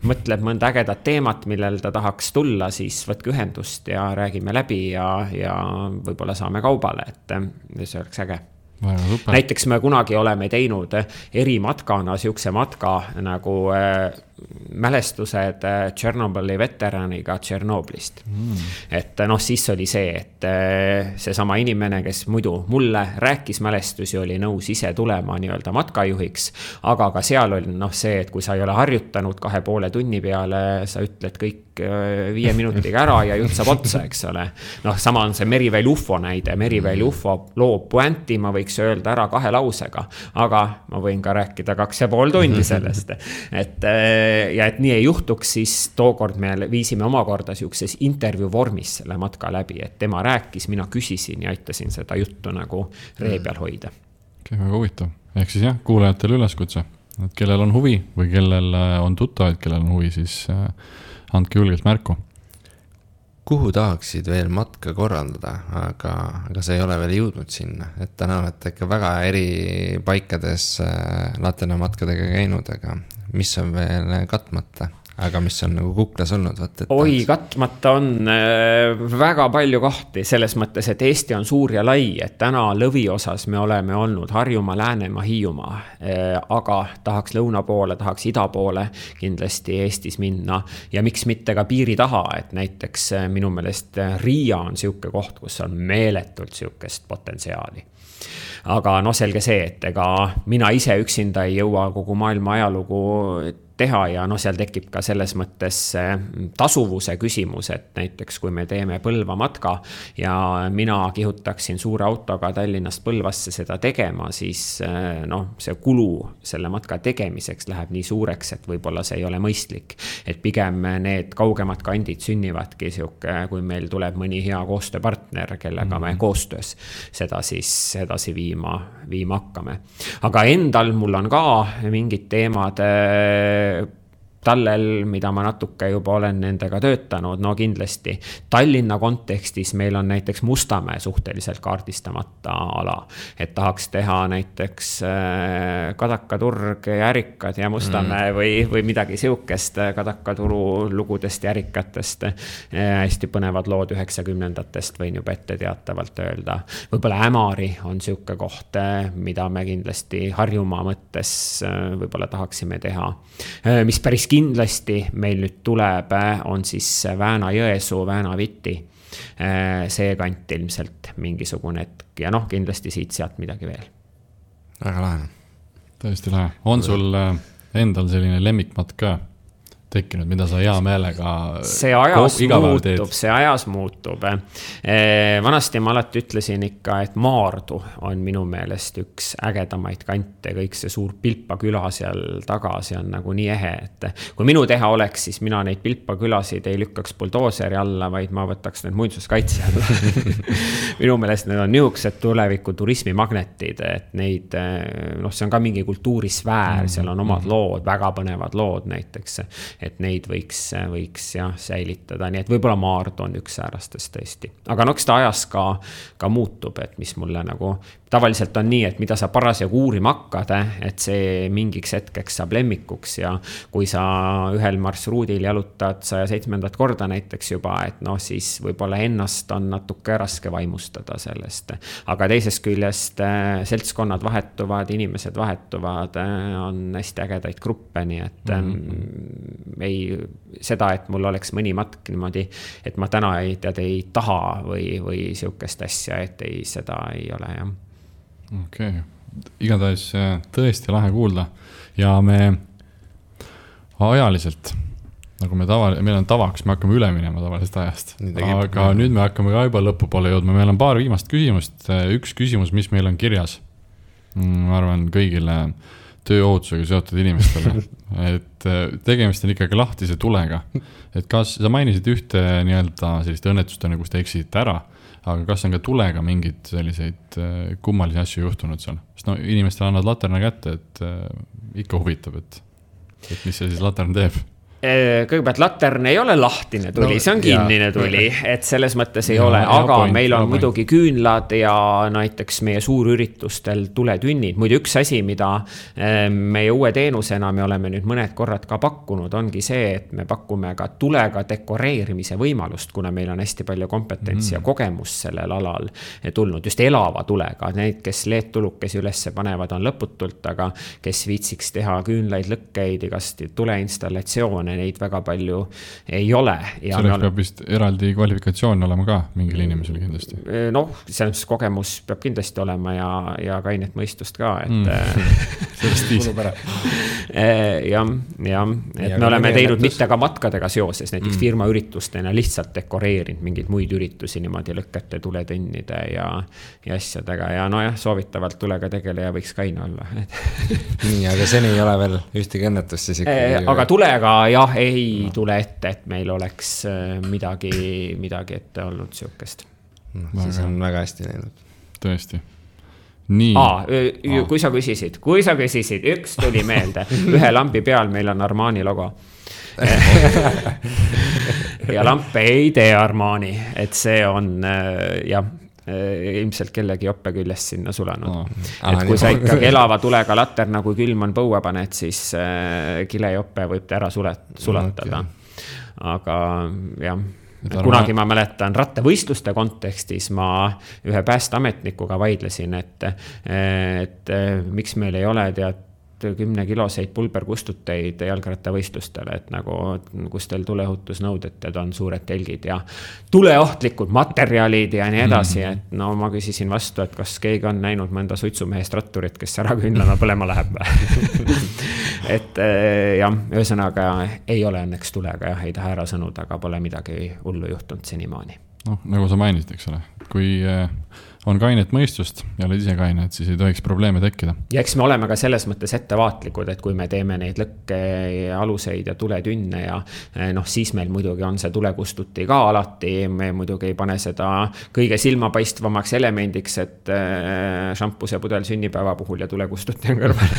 mõtleb mõnda ägedat teemat, millel ta tahaks tulla, siis võtke ühendust ja räägime läbi ja võib-olla saame kaubale, et see oleks äge. Näiteks me kunagi oleme teinud erimatkana siukse matka nagu mälestused Tšernobõli veteraniga Tšernoblist. Et siis oli see, et see sama inimene, kes muidu mulle rääkis mälestusi, oli nõus ise tulema nii-öelda matkajuhiks, aga ka seal oli see, et kui sa ei ole harjutanud 2,5 tunni peale, sa ütled kõik 5 minutiga ära ja jutt saab otsa, eks ole. Sama on see Meriväel UFO näide. Meriväel UFO loob puänti, ma võiks öelda ära 2 lausega, aga ma võin ka rääkida 2,5 tundi sellest. Ja et nii ei juhtuks, siis tookord me viisime omakorda siukses intervjuu vormis selle matka läbi, et tema rääkis, mina küsisin ja aitasin seda juttu nagu ree peal hoida.
Väga huvitav. Ehk siis kuulajatele üleskutse, et kellel on huvi või kellel on tuttavad, kellel on huvi, siis andke julgelt märku.
Kuhu tahaksid veel matka korraldada, aga see ei ole veel jõudnud sinna, et täna olete ikka väga eri paikades Laterna matkadega käinud, aga mis on veel katmata? aga mis on nagu kuklas olnud?
Oi, katmata on väga palju kohti selles mõttes, et Eesti on suur ja lai, et täna lõviosas me oleme olnud Harjumaa, Läänemaa, Hiiumaa, aga tahaks lõuna poole, tahaks ida poole kindlasti Eestis minna ja miks mitte ka piiri taha, et näiteks minu meelest Riia on siuke koht, kus on meeletult siukest potentsiaali. Aga selge see, et ega mina ise üksinda ei jõua kogu maailma ajalugu teha ja seal tekib ka selles mõttes tasuvuse küsimus, et näiteks kui me teeme Põlva matka ja mina kihutaksin suure autoga Tallinnast Põlvasse seda tegema, siis see kulu selle matka tegemiseks läheb nii suureks, et võib-olla see ei ole mõistlik. Et pigem need kaugemad kandid sünnivadki siuke, kui meil tuleb mõni hea koostööpartner, kellega me koostöös seda siis edasi viima hakkame. Aga endal mul on ka mingid teemad tallel, mida ma natuke juba olen nendega töötanud, kindlasti Tallinna kontekstis meil on näiteks Mustamäe suhteliselt kaardistamata ala, et tahaks teha näiteks Kadakaturg ja Ärikad ja Mustamäe või midagi siukest Kadakaturu lugudest ja Ärikatest. Hästi põnevad lood 90-ndatest võin juba ette teatavalt öelda. Võib-olla Ämari on siuke koht, mida me kindlasti Harjumaa mõttes võib-olla tahaksime teha. Mis päris kindlasti meil nüüd tuleb, on siis Vääna-Jõesuu, Vääna-Viti. See kant ilmselt mingisugune hetk ja kindlasti siit-sealt midagi veel.
Väga lahe.
Tõesti lahe. On sul endal selline lemmikmatk ka tekkinud, mida sa hea meelega
see ajas muutub. Vanasti ma alati ütlesin ikka, et Maardu on minu meelest üks ägedamaid kante, kõik see suur Pilpa küla seal taga, see on nagu nii ehe, et kui minu teha oleks, siis mina neid Pilpa külasid ei lükkaks buldooseri alla, vaid ma võtaks need muinsuskaitse alla. Minu meelest need on niisugused tuleviku turismimagnetid, et neid, see on ka mingi kultuurisfäär, seal on omad lood, väga põnevad lood näiteks, et neid võiks säilitada, nii et võib-olla Maardu on üks säärastest tõesti. Aga eks ta ajas ka muutub, et mis mulle nagu tavaliselt on nii, et mida sa parasjagu uurima hakkad, et see mingiks hetkeks saab lemmikuks ja kui sa ühel marsruudil jalutad 107. korda näiteks juba, et siis võib-olla ennast on natuke raske vaimustada sellest. Aga teisest küljest seltskonnad vahetuvad, inimesed vahetuvad, on hästi ägedaid gruppe, nii et seda, et mul oleks mõni matk niimoodi, et ma täna ei taha või siukest asja, et seda ei ole, jah.
Okei. Igatahes tõesti lahe kuulda ja me ajaliselt, nagu meil on tavaks, me hakkame üle minema tavalisest ajast, aga nüüd me hakkame ka juba lõpupoole jõudma. Meil on paar viimast küsimust, üks küsimus, mis meil on kirjas, ma arvan kõigile tööohutusega seotud inimestele, et tegemist on ikkagi lahtise tulega, et kas sa mainisid ühte nii-öelda sellist õnnetustena, kus te eksisite ära, aga kas on ka tulega mingid selliseid kummalisi asju juhtunud seal? Sest inimestele annad laterna kätte, et ikka huvitab, et mis see siis latern teeb?
Kõigepealt latern ei ole lahtine tuli, see on kinnine tuli, et selles mõttes ei ole, aga meil on muidugi küünlad ja näiteks meie suurüritustel tuletünnid. Muidu üks asi, mida meie uue teenusena me oleme nüüd mõned korrad ka pakkunud, ongi see, et me pakume ka tulega dekoreerimise võimalust, kuna meil on hästi palju kompetentsi ja kogemus sellel alal tulnud, just elava tulega. Need, kes LED-tulukesi ülesse panevad, on lõputult, aga kes viitsiks teha küünlaid, lõkkeid, igast tuleinstallatsioone, neid väga palju ei ole. Ja
selleks peab vist eraldi kvalifikatsioon olema ka mingil inimesel kindlasti.
Selles kogemus peab kindlasti olema ja kainet mõistust ka, et
sellest viisib.
Et me oleme teinud mitte ka matkadega seoses, näiteks firma üritustena lihtsalt dekoreerinud mingeid muid üritusi niimoodi lõkkete, tuletõnnide ja asjadega ja soovitavalt tulega tegeleja võiks kaine olla.
Nii, aga seni ei ole veel ühtegi õnnetust siis ikkagi.
Aga tulega ei tule ette, et meil oleks midagi ette olnud siukest.
Siis on väga hästi läinud.
Tõesti. Nii.
Kui sa küsisid, üks tuli meelde. Ühe lambi peal meil on Armani logo. Ja lamp ei tee Armani, et see on, jah. ilmselt kellegi joppe küljest sinna sulanud. Et kui sa ikkagi elava tulega laterna, kui külm on põue paned, siis kilejoppe võib ta ära sulatada. Aga jah, kunagi ma mäletan rattavõistluste kontekstis ma ühe päästeametnikuga vaidlesin, et miks meil ei ole 10-kiloseid pulberkustuteid jalgrattavõistlustele, et nagu kus teil tuleohutusnõuded on suured telgid ja tuleohtlikud materjalid ja nii edasi, et no ma küsisin vastu, et kas keegi on näinud mõnda suitsumehest ratturit, kes ära küünlana põlema läheb. Et jah, ühesõnaga ei ole õnneks tulega, jah, ei taha ära sõnuda, aga pole midagi hullu juhtunud senimaani.
No, nagu sa mainisid, eks ole, kui on kainet mõistust ja oled ise kaine, et siis ei tohiks probleeme tekkida.
Ja eks me oleme ka selles mõttes ettevaatlikud, et kui me teeme neid lõkke aluseid ja tuletünne ja siis meil muidugi on see tulekustuti ka alati, me muidugi ei pane seda kõige silmapaistvamaks elemendiks, et šampuse pudel sünnipäeva puhul ja tulekustuti on kõrval.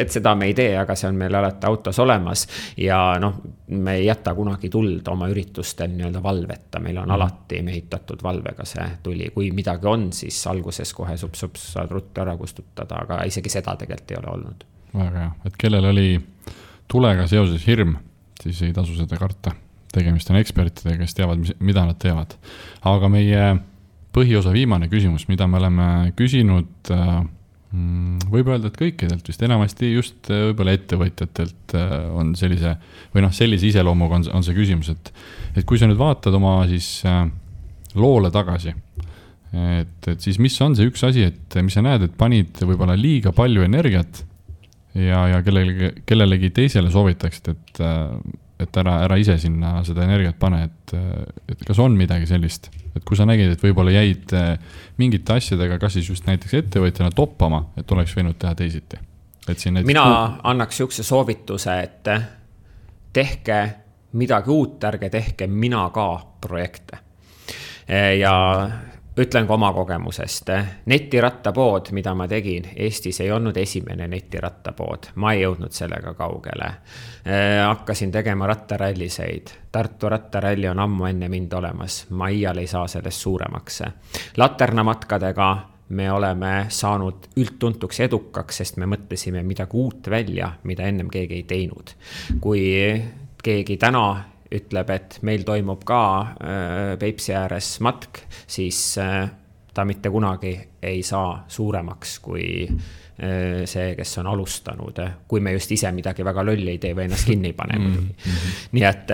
Et seda me ei tee, aga see on meil alati autos olemas ja me ei jäta kunagi tuld oma üritustel nii-öelda valveta, meil on alati mehitatud valvega see tuli, kui midagi on, siis alguses kohe sups saad ruttu ära kustutada, aga isegi seda tegelikult ei ole olnud.
Väga hea, et kellel oli tulega seoses hirm, siis ei tasu seda karta. Tegemist on ekspertidega, kes teavad, mida nad teevad. Aga meie põhiosa viimane küsimus, mida me oleme küsinud, võib öelda, et kõikidelt vist enamasti just võib-olla ettevõtjatelt on sellise iseloomuga on see küsimus, et kui sa nüüd vaatad oma siis loole tagasi, et siis mis on see üks asi, et mis sa näed, et panid võib-olla liiga palju energiat ja kellelegi teisele soovitaksid, et ära ise sinna seda energiat pane, et kas on midagi sellist, et kui sa nägid, et võib-olla jäid mingite asjadega, kas siis just näiteks ettevõtjana toppama, et oleks võinud teha teisiti.
Mina annaks sihukese soovituse, et tehke midagi uut, ärge tehke mina ka projekte. Ja ütlen ka oma kogemusest. Netirattapood, mida ma tegin, Eestis ei olnud esimene netirattapood. Ma ei jõudnud sellega kaugele. Hakkasin tegema rattaralliseid. Tartu rattaralli on ammu enne mind olemas. Ma iial ei saa sellest suuremaks. Laternamatkadega me oleme saanud üldtuntuks edukaks, sest me mõtlesime midagi uut välja, mida ennem keegi ei teinud. Kui keegi täna ütleb, et meil toimub ka Peipsi ääres matk, siis ta mitte kunagi ei saa suuremaks kui see, kes on alustanud, kui me just ise midagi väga lolli ei tee või ennast kinni ei pane. Nii et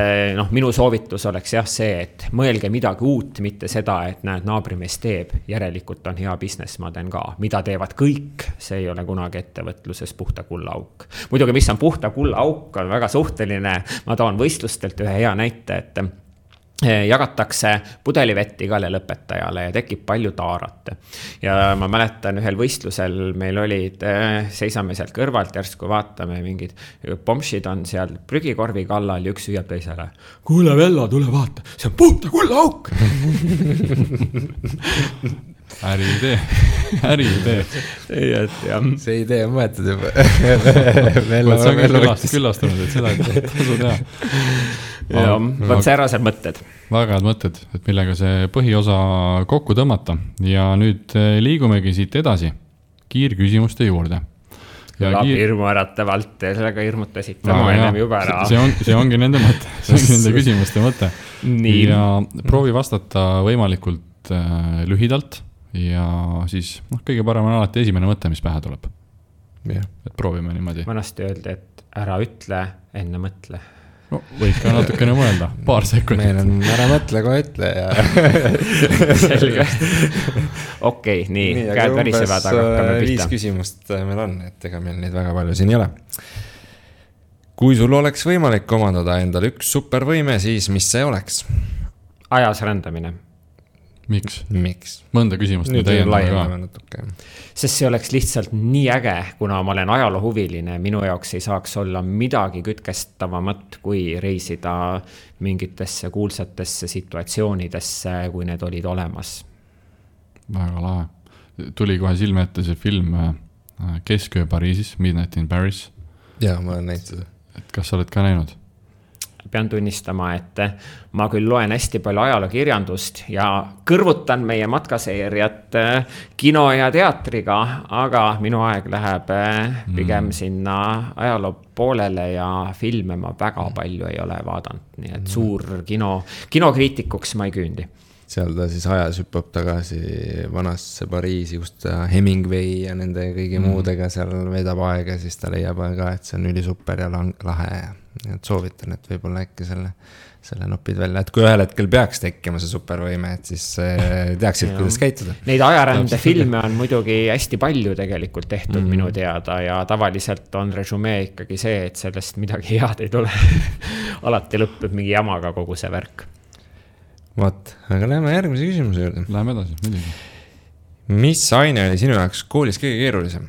minu soovitus oleks jah see, et mõelge midagi uut, mitte seda, et näed, naabrimees teeb, järelikult on hea business, ma teen ka. Mida teevad kõik, see ei ole kunagi ettevõtluses puhta kulla auk. Muidugi, mis on puhta kulla auk, on väga suhteline. Ma toon võistlustelt ühe hea näite, et jagatakse pudelivett igale lõpetajale ja tekib palju taarat. Ja ma mäletan ühel võistlusel meil olid, seisame sealt kõrvalt, järsku vaatame, mingid pomšid on seal prügikorvi kallal ja üks hüüab teisele. Kuule Vello, tule vaata, see on puhta kulla auk.
Äriidee.
See idee on võetud juba.
See on küllastunud, et seda tasu teha.
Ja, võt säärased mõtted.
Väga head mõtted, et millega see põhiosa kokku tõmmata. Ja nüüd liigumegi siit edasi kiirküsimuste juurde.
Hirmu äratavalt, sellega hirmutasite ennem juba ära.
See ongi nende mõte, see ongi nende küsimuste mõte. Ja proovi vastata võimalikult lühidalt ja siis kõige parem on alati esimene mõte, mis pähe tuleb. Et proovime niimoodi.
Vanasti öeldi, et ära ütle, enne mõtle.
No, võid ka natukene mõelda, paar sekundit.
Meil on ära mõtle, kohe ütle ja...
Selge. Okei, nii käed värisevad, aga hakkame pihta.
5 küsimust meil on, et ega meil neid väga palju siin ei ole. Kui sul oleks võimalik omandada endal üks supervõime, siis mis see oleks?
Ajas rändamine.
Miks?
Miks?
Mõnda küsimust nüüd
täiendama ka.
Sest see oleks lihtsalt nii äge, kuna ma olen ajaloohuviline, minu jaoks ei saaks olla midagi kütkestavamat, kui reisida mingitesse kuulsatesse situatsioonidesse, kui need olid olemas.
Väga lahe. Tuli kohe silme ette see film Kesköö Pariisis, Midnight in Paris.
Jaa, ma olen näinud seda.
Et kas sa oled ka näinud?
pean tunnistama, et ma küll loen hästi palju ajalookirjandust ja kõrvutan meie matkaseeriat kino ja teatriga, aga minu aeg läheb pigem sinna ajaloo poolele ja filme ma väga palju ei ole vaadanud, nii et suur kinokriitikuks ma ei küündi.
Seal ta siis ajas hüppab tagasi vanasse Pariisi, kus ta Hemingway ja nende kõigi muudega seal veedab aega, siis ta leiab ka, et see on üli super ja lahe ja et soovitan, et võib-olla äkki selle nopid välja, et kui ühel hetkel peaks tekkima see supervõime, et siis teaksid, kuidas käituda.
Neid ajarände filme on muidugi hästi palju tegelikult tehtud minu teada ja tavaliselt on resümee ikkagi see, et sellest midagi head ei tule. Alati lõppeb mingi jamaga kogu see värk.
Vaat, aga läheme järgmise küsimuse juurde.
Läheme edasi, muidugi.
Mis aine oli sinu jaoks koolis kõige keerulisem?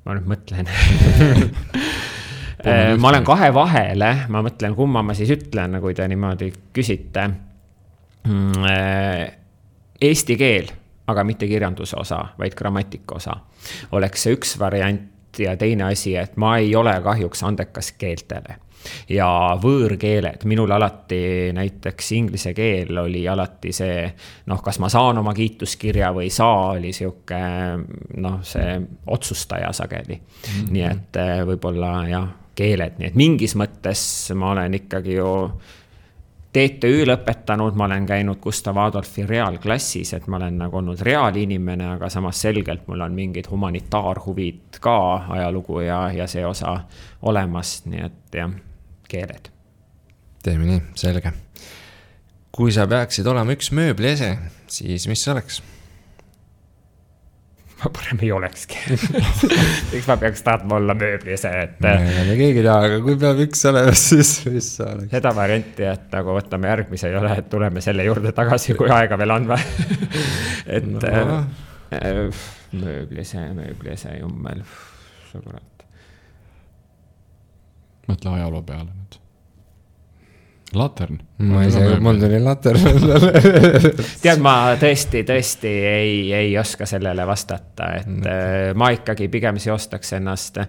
Ma nüüd mõtlen. Ma olen kahe vahele, ma mõtlen, kumma ma siis ütlen, kui te niimoodi küsite. Eesti keel, aga mitte kirjanduse osa, vaid grammatika osa. Oleks see üks variant ja teine asi, et ma ei ole kahjuks andekas keeltele. Ja võõrkeeled, minul alati näiteks inglise keel oli alati see, kas ma saan oma kiituskirja või saa, oli siuke, see otsustaja sageli. Nii et võib-olla keeled, nii et mingis mõttes ma olen ikkagi ju TTÜ lõpetanud, ma olen käinud Gustav Adolfi reaalklassis, et ma olen nagu olnud reaalinimene, aga samas selgelt mul on mingid humanitaarhuvid ka ajalugu ja see osa olemas, nii et keeled.
Teeme nii, selge. Kui sa peaksid olema üks mööbliese, siis mis see oleks?
Ma parem ei olekski. Eks ma peaks tahtma olla mööbliese.
Me keegi taha, aga kui peab üks olema, siis mis see oleks?
Seda varianti, et nagu võtame järgmise ei ole, et tuleme selle juurde tagasi, kui aega veel on. Et mööbliese jummel. Sõbrad.
Mõtle ajaloo peale nüüd. Latern.
Ma ei saa, mul tuli latern.
Tead, ma tõesti ei oska sellele vastata, et ma ikkagi pigem seostaks ennast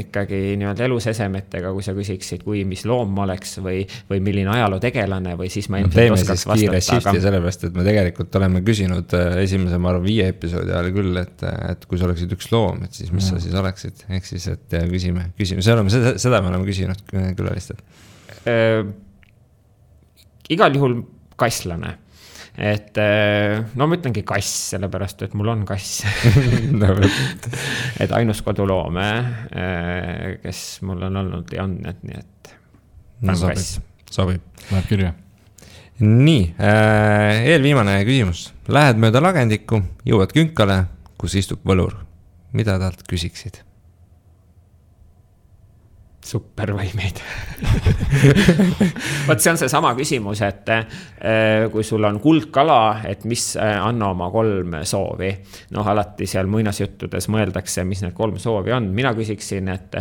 ikkagi nii-öelda elusesemetega, kui sa küsiksid, kui mis loom ma oleks või milline ajaloo tegelane või siis ma ilmselt oskaks vastata.
Teeme siis kiire sellepärast, et me tegelikult oleme küsinud esimese, ma arvan, 5 episoodi ajal küll, et kui sa oleksid üks loom, et siis mis sa siis oleksid, ehk siis, et küsime. Seda me oleme küsinud külalistelt.
Igal juhul kasslane, et ma ütlengi kass, sellepärast, et mul on kass. Et ainus koduloome, kes mul on olnud ja on, nii et kass.
Sobib.
Läheb kirja.
Nii, eelviimane küsimus. Lähed mööda lagendikku, jõuad künkale, kus istub võlur. Mida talt küsiksid?
Supervõimeid. Vaat see on see sama küsimus, et kui sul on kuldkala, et mis anna oma 3 soovi. Alati seal muinasjuttudes mõeldakse, mis need 3 soovi on. Mina küsiksin, et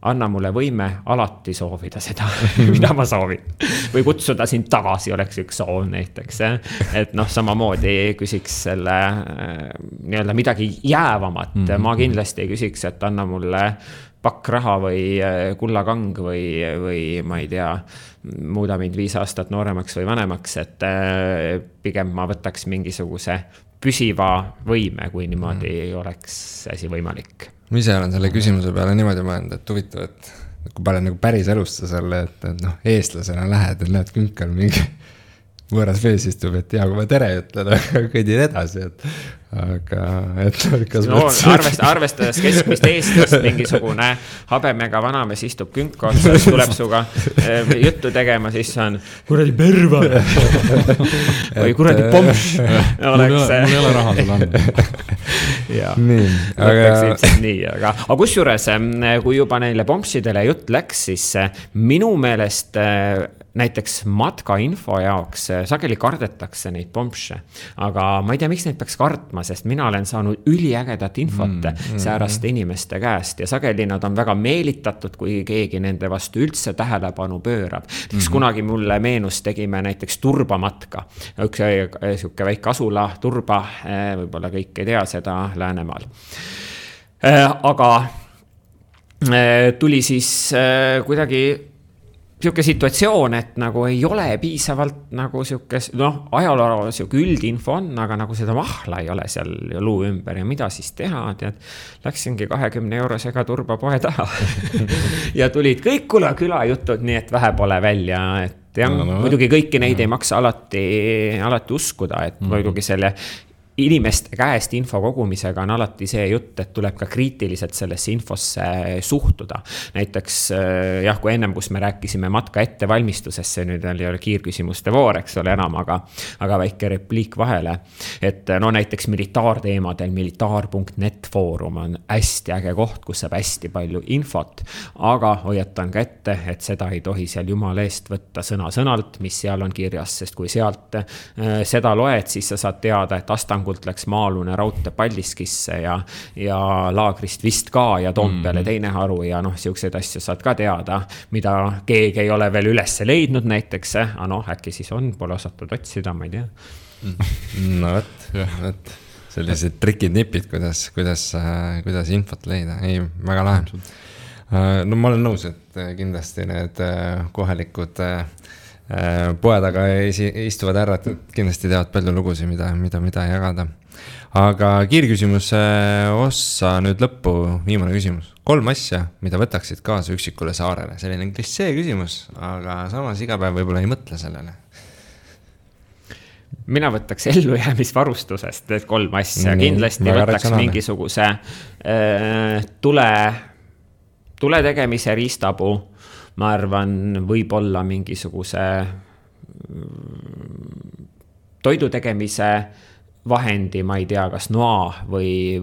anna mulle võime alati soovida seda, mida ma soovin. Või kutsuda sind tagasi oleks üks soov näiteks. Et samamoodi küsiks selle nii-öelda midagi jäävamat. Ma kindlasti ei küsiks, et anna mulle pakk raha või kullakang või ma ei tea, muuda mind 5 aastat nooremaks või vanemaks, et pigem ma võtaks mingisuguse püsiva võime, kui niimoodi oleks asi võimalik.
Ma ise olen selle küsimuse peale niimoodi mõelnud, et huvitav, et kui palju nagu päris elusta selle, et eestlasena lähed, et näed künkal mingi võõras vees istub, et kui ma tere ütlen, kõidin edasi, aga
arvestades keskmist eestlast, mingisugune habemega vanamees istub künka otsas, tuleb suga juttu tegema, siis on kuradi perva või kuradi pomš.
Mul ei ole raha sulle anda.
Aga kusjuures, kui juba neile pomšidele jutt läks, siis minu meelest näiteks matkainfo jaoks sageli kardetakse neid pomše, aga ma ei tea, miks neid peaks kartma, sest mina olen saanud üliägedat infot sääraste inimeste käest ja sageli nad on väga meelitatud, kui keegi nende vastu üldse tähelepanu pöörab. Kunagi mulle meenus tegime näiteks turbamatka, üks siuke väike asula, Turba, võib-olla kõik ei tea seda Läänemaal. Aga tuli siis kuidagi siuke situatsioon, et nagu ei ole piisavalt nagu siuke, ajaloo siuke üldinfo on, aga nagu seda mahla ei ole seal luu ümber ja mida siis teha, tead, läksingi 20 eurosega turbapoe taha ja tulid kõik küla jutud, nii et vähe pole välja, et jah, muidugi kõiki neid ei maksa alati uskuda, et muidugi selle inimeste käest info kogumisega on alati see jutt, et tuleb ka kriitiliselt sellesse infosse suhtuda. Näiteks jah, kui ennem, kus me rääkisime matka ettevalmistusesse, nüüd ei ole kiirküsimuste voor, eks ole enam, aga väike repliik vahele. Et näiteks militaarteemadel militaar.net foorum on hästi äge koht, kus saab hästi palju infot, aga hoiatan ka ette, et seda ei tohi seal jumala eest võtta sõna-sõnalt, mis seal on kirjas, sest kui sealt seda loed, siis sa saad teada, et Astangult läks Maalune raudtee Paldiskisse ja Laagrist vist ka ja Toompeale teine haru ja siukseid asju saad ka teada, mida keegi ei ole veel üles leidnud näiteks, äkki siis on, pole osatud otsida, ma ei tea.
No võt, sellised trikid-nipid, kuidas infot leida, ei, väga lahe. No ma olen nõus, et kindlasti need kohalikud poed aga istuvad härrad, kindlasti teavad palju lugusid, mida jagada. Aga kiirküsimuse ossa nüüd lõppu, viimane küsimus. 3 asja, mida võtaksid kaasa üksikule saarele. Selline klissee küsimus, aga samas iga päev võib-olla ei mõtle sellele.
Mina võtaks ellujäämisvarustusest need 3 asja. Kindlasti võtaks mingisuguse tule tegemise riistapuu. Ma arvan, võib-olla mingisuguse toidu tegemise vahendi, ma ei tea, kas noa või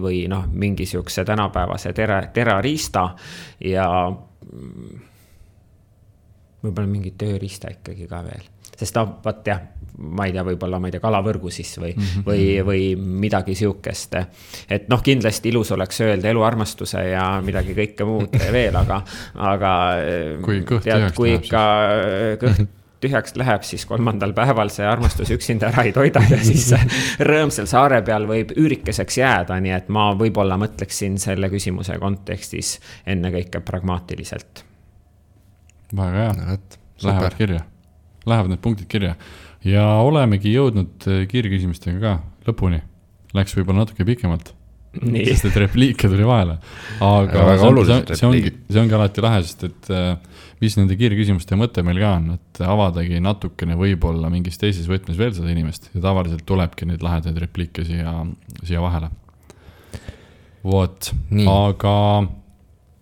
mingisuguse tänapäevase terariista ja võib-olla mingi tööriista ikkagi ka veel. Sest vaat jah, ma ei tea, võib-olla kalavõrgu siis või midagi siukest. Et kindlasti ilus oleks öelda eluarmastuse ja midagi kõike muud veel, aga
kui ikka
kõht tühjaks läheb, siis 3. päeval see armastus üksinda ära ei toida ja siis rõõmsal saare peal võib üürikeseks jääda, nii et ma võib-olla mõtleksin selle küsimuse kontekstis ennekõike pragmaatiliselt.
Väga hea, lähevad kirja. Lähevad need punktid kirja ja olemegi jõudnud kiirküsimustega ka lõpuni. Läks võib-olla natuke pikemalt, sest et repliike tuli vahele. Aga see ongi alati lahe, sest et mis nende kiirküsimuste mõte meil ka on, et avadagi natukene võib-olla mingis teises võtmes veel seda inimest ja tavaliselt tulebki neid lahedaid repliike siia vahele. Vot, aga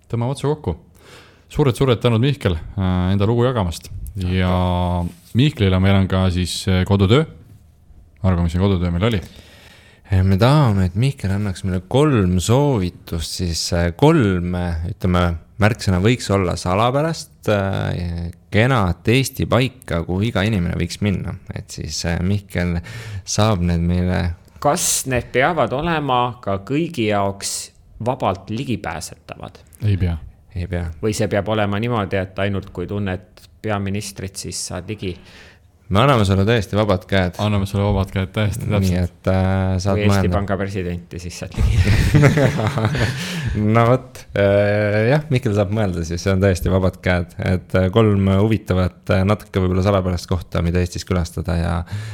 tõmbame otsa kokku. Suured tänud Mihkel enda lugu jagamast. Ja Mihklile meil on ka siis kodutöö. Argo, mis see kodutöö meil oli?
Me tahame, et Mihkel annaks meile 3 soovitust, siis 3, ütleme, märksõna võiks olla salapärast, kenat Eesti paika, kuhu iga inimene võiks minna. Et siis Mihkel saab need meile...
Kas need peavad olema ka kõigi jaoks vabalt ligipääsetavad?
Ei pea.
Või see peab olema niimoodi, et ainult kui tunned peaministrit, siis saad ligi.
Me anname sulle tõesti vabad käed.
Anname sulle vabad käed täiesti täpselt.
Nii, et saad
kui Eesti Panga presidenti, siis saad ligi.
No võt, jah, Mihkel saab mõelda, siis see on täiesti vabad käed. Et 3 huvitavat natuke võib-olla salapärast kohta, mida Eestis külastada ja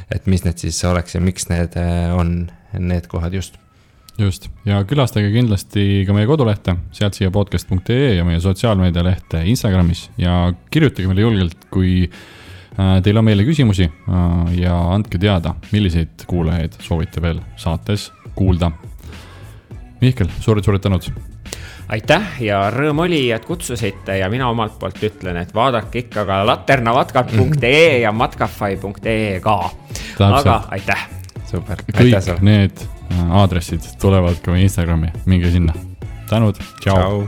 et mis need siis oleks ja miks need on need kohad just.
Just, ja külastage kindlasti ka meie kodulehte, sealt siia podcast.ee ja meie sotsiaalmeedia lehte Instagramis ja kirjutage meile julgelt, kui teil on meile küsimusi ja andke teada, milliseid kuulajaid soovite veel saates kuulda. Mihkel, suured tänud.
Aitäh ja rõõm oli, et kutsusite ja mina omalt poolt ütlen, et vaadake ikka ka laternamatkad.ee ja matkafai.ee ka. Aga aitäh.
Super.
Kõik need aadressid tulevad ka meie Instagrami. Minge sinna. Tänud. Ciao.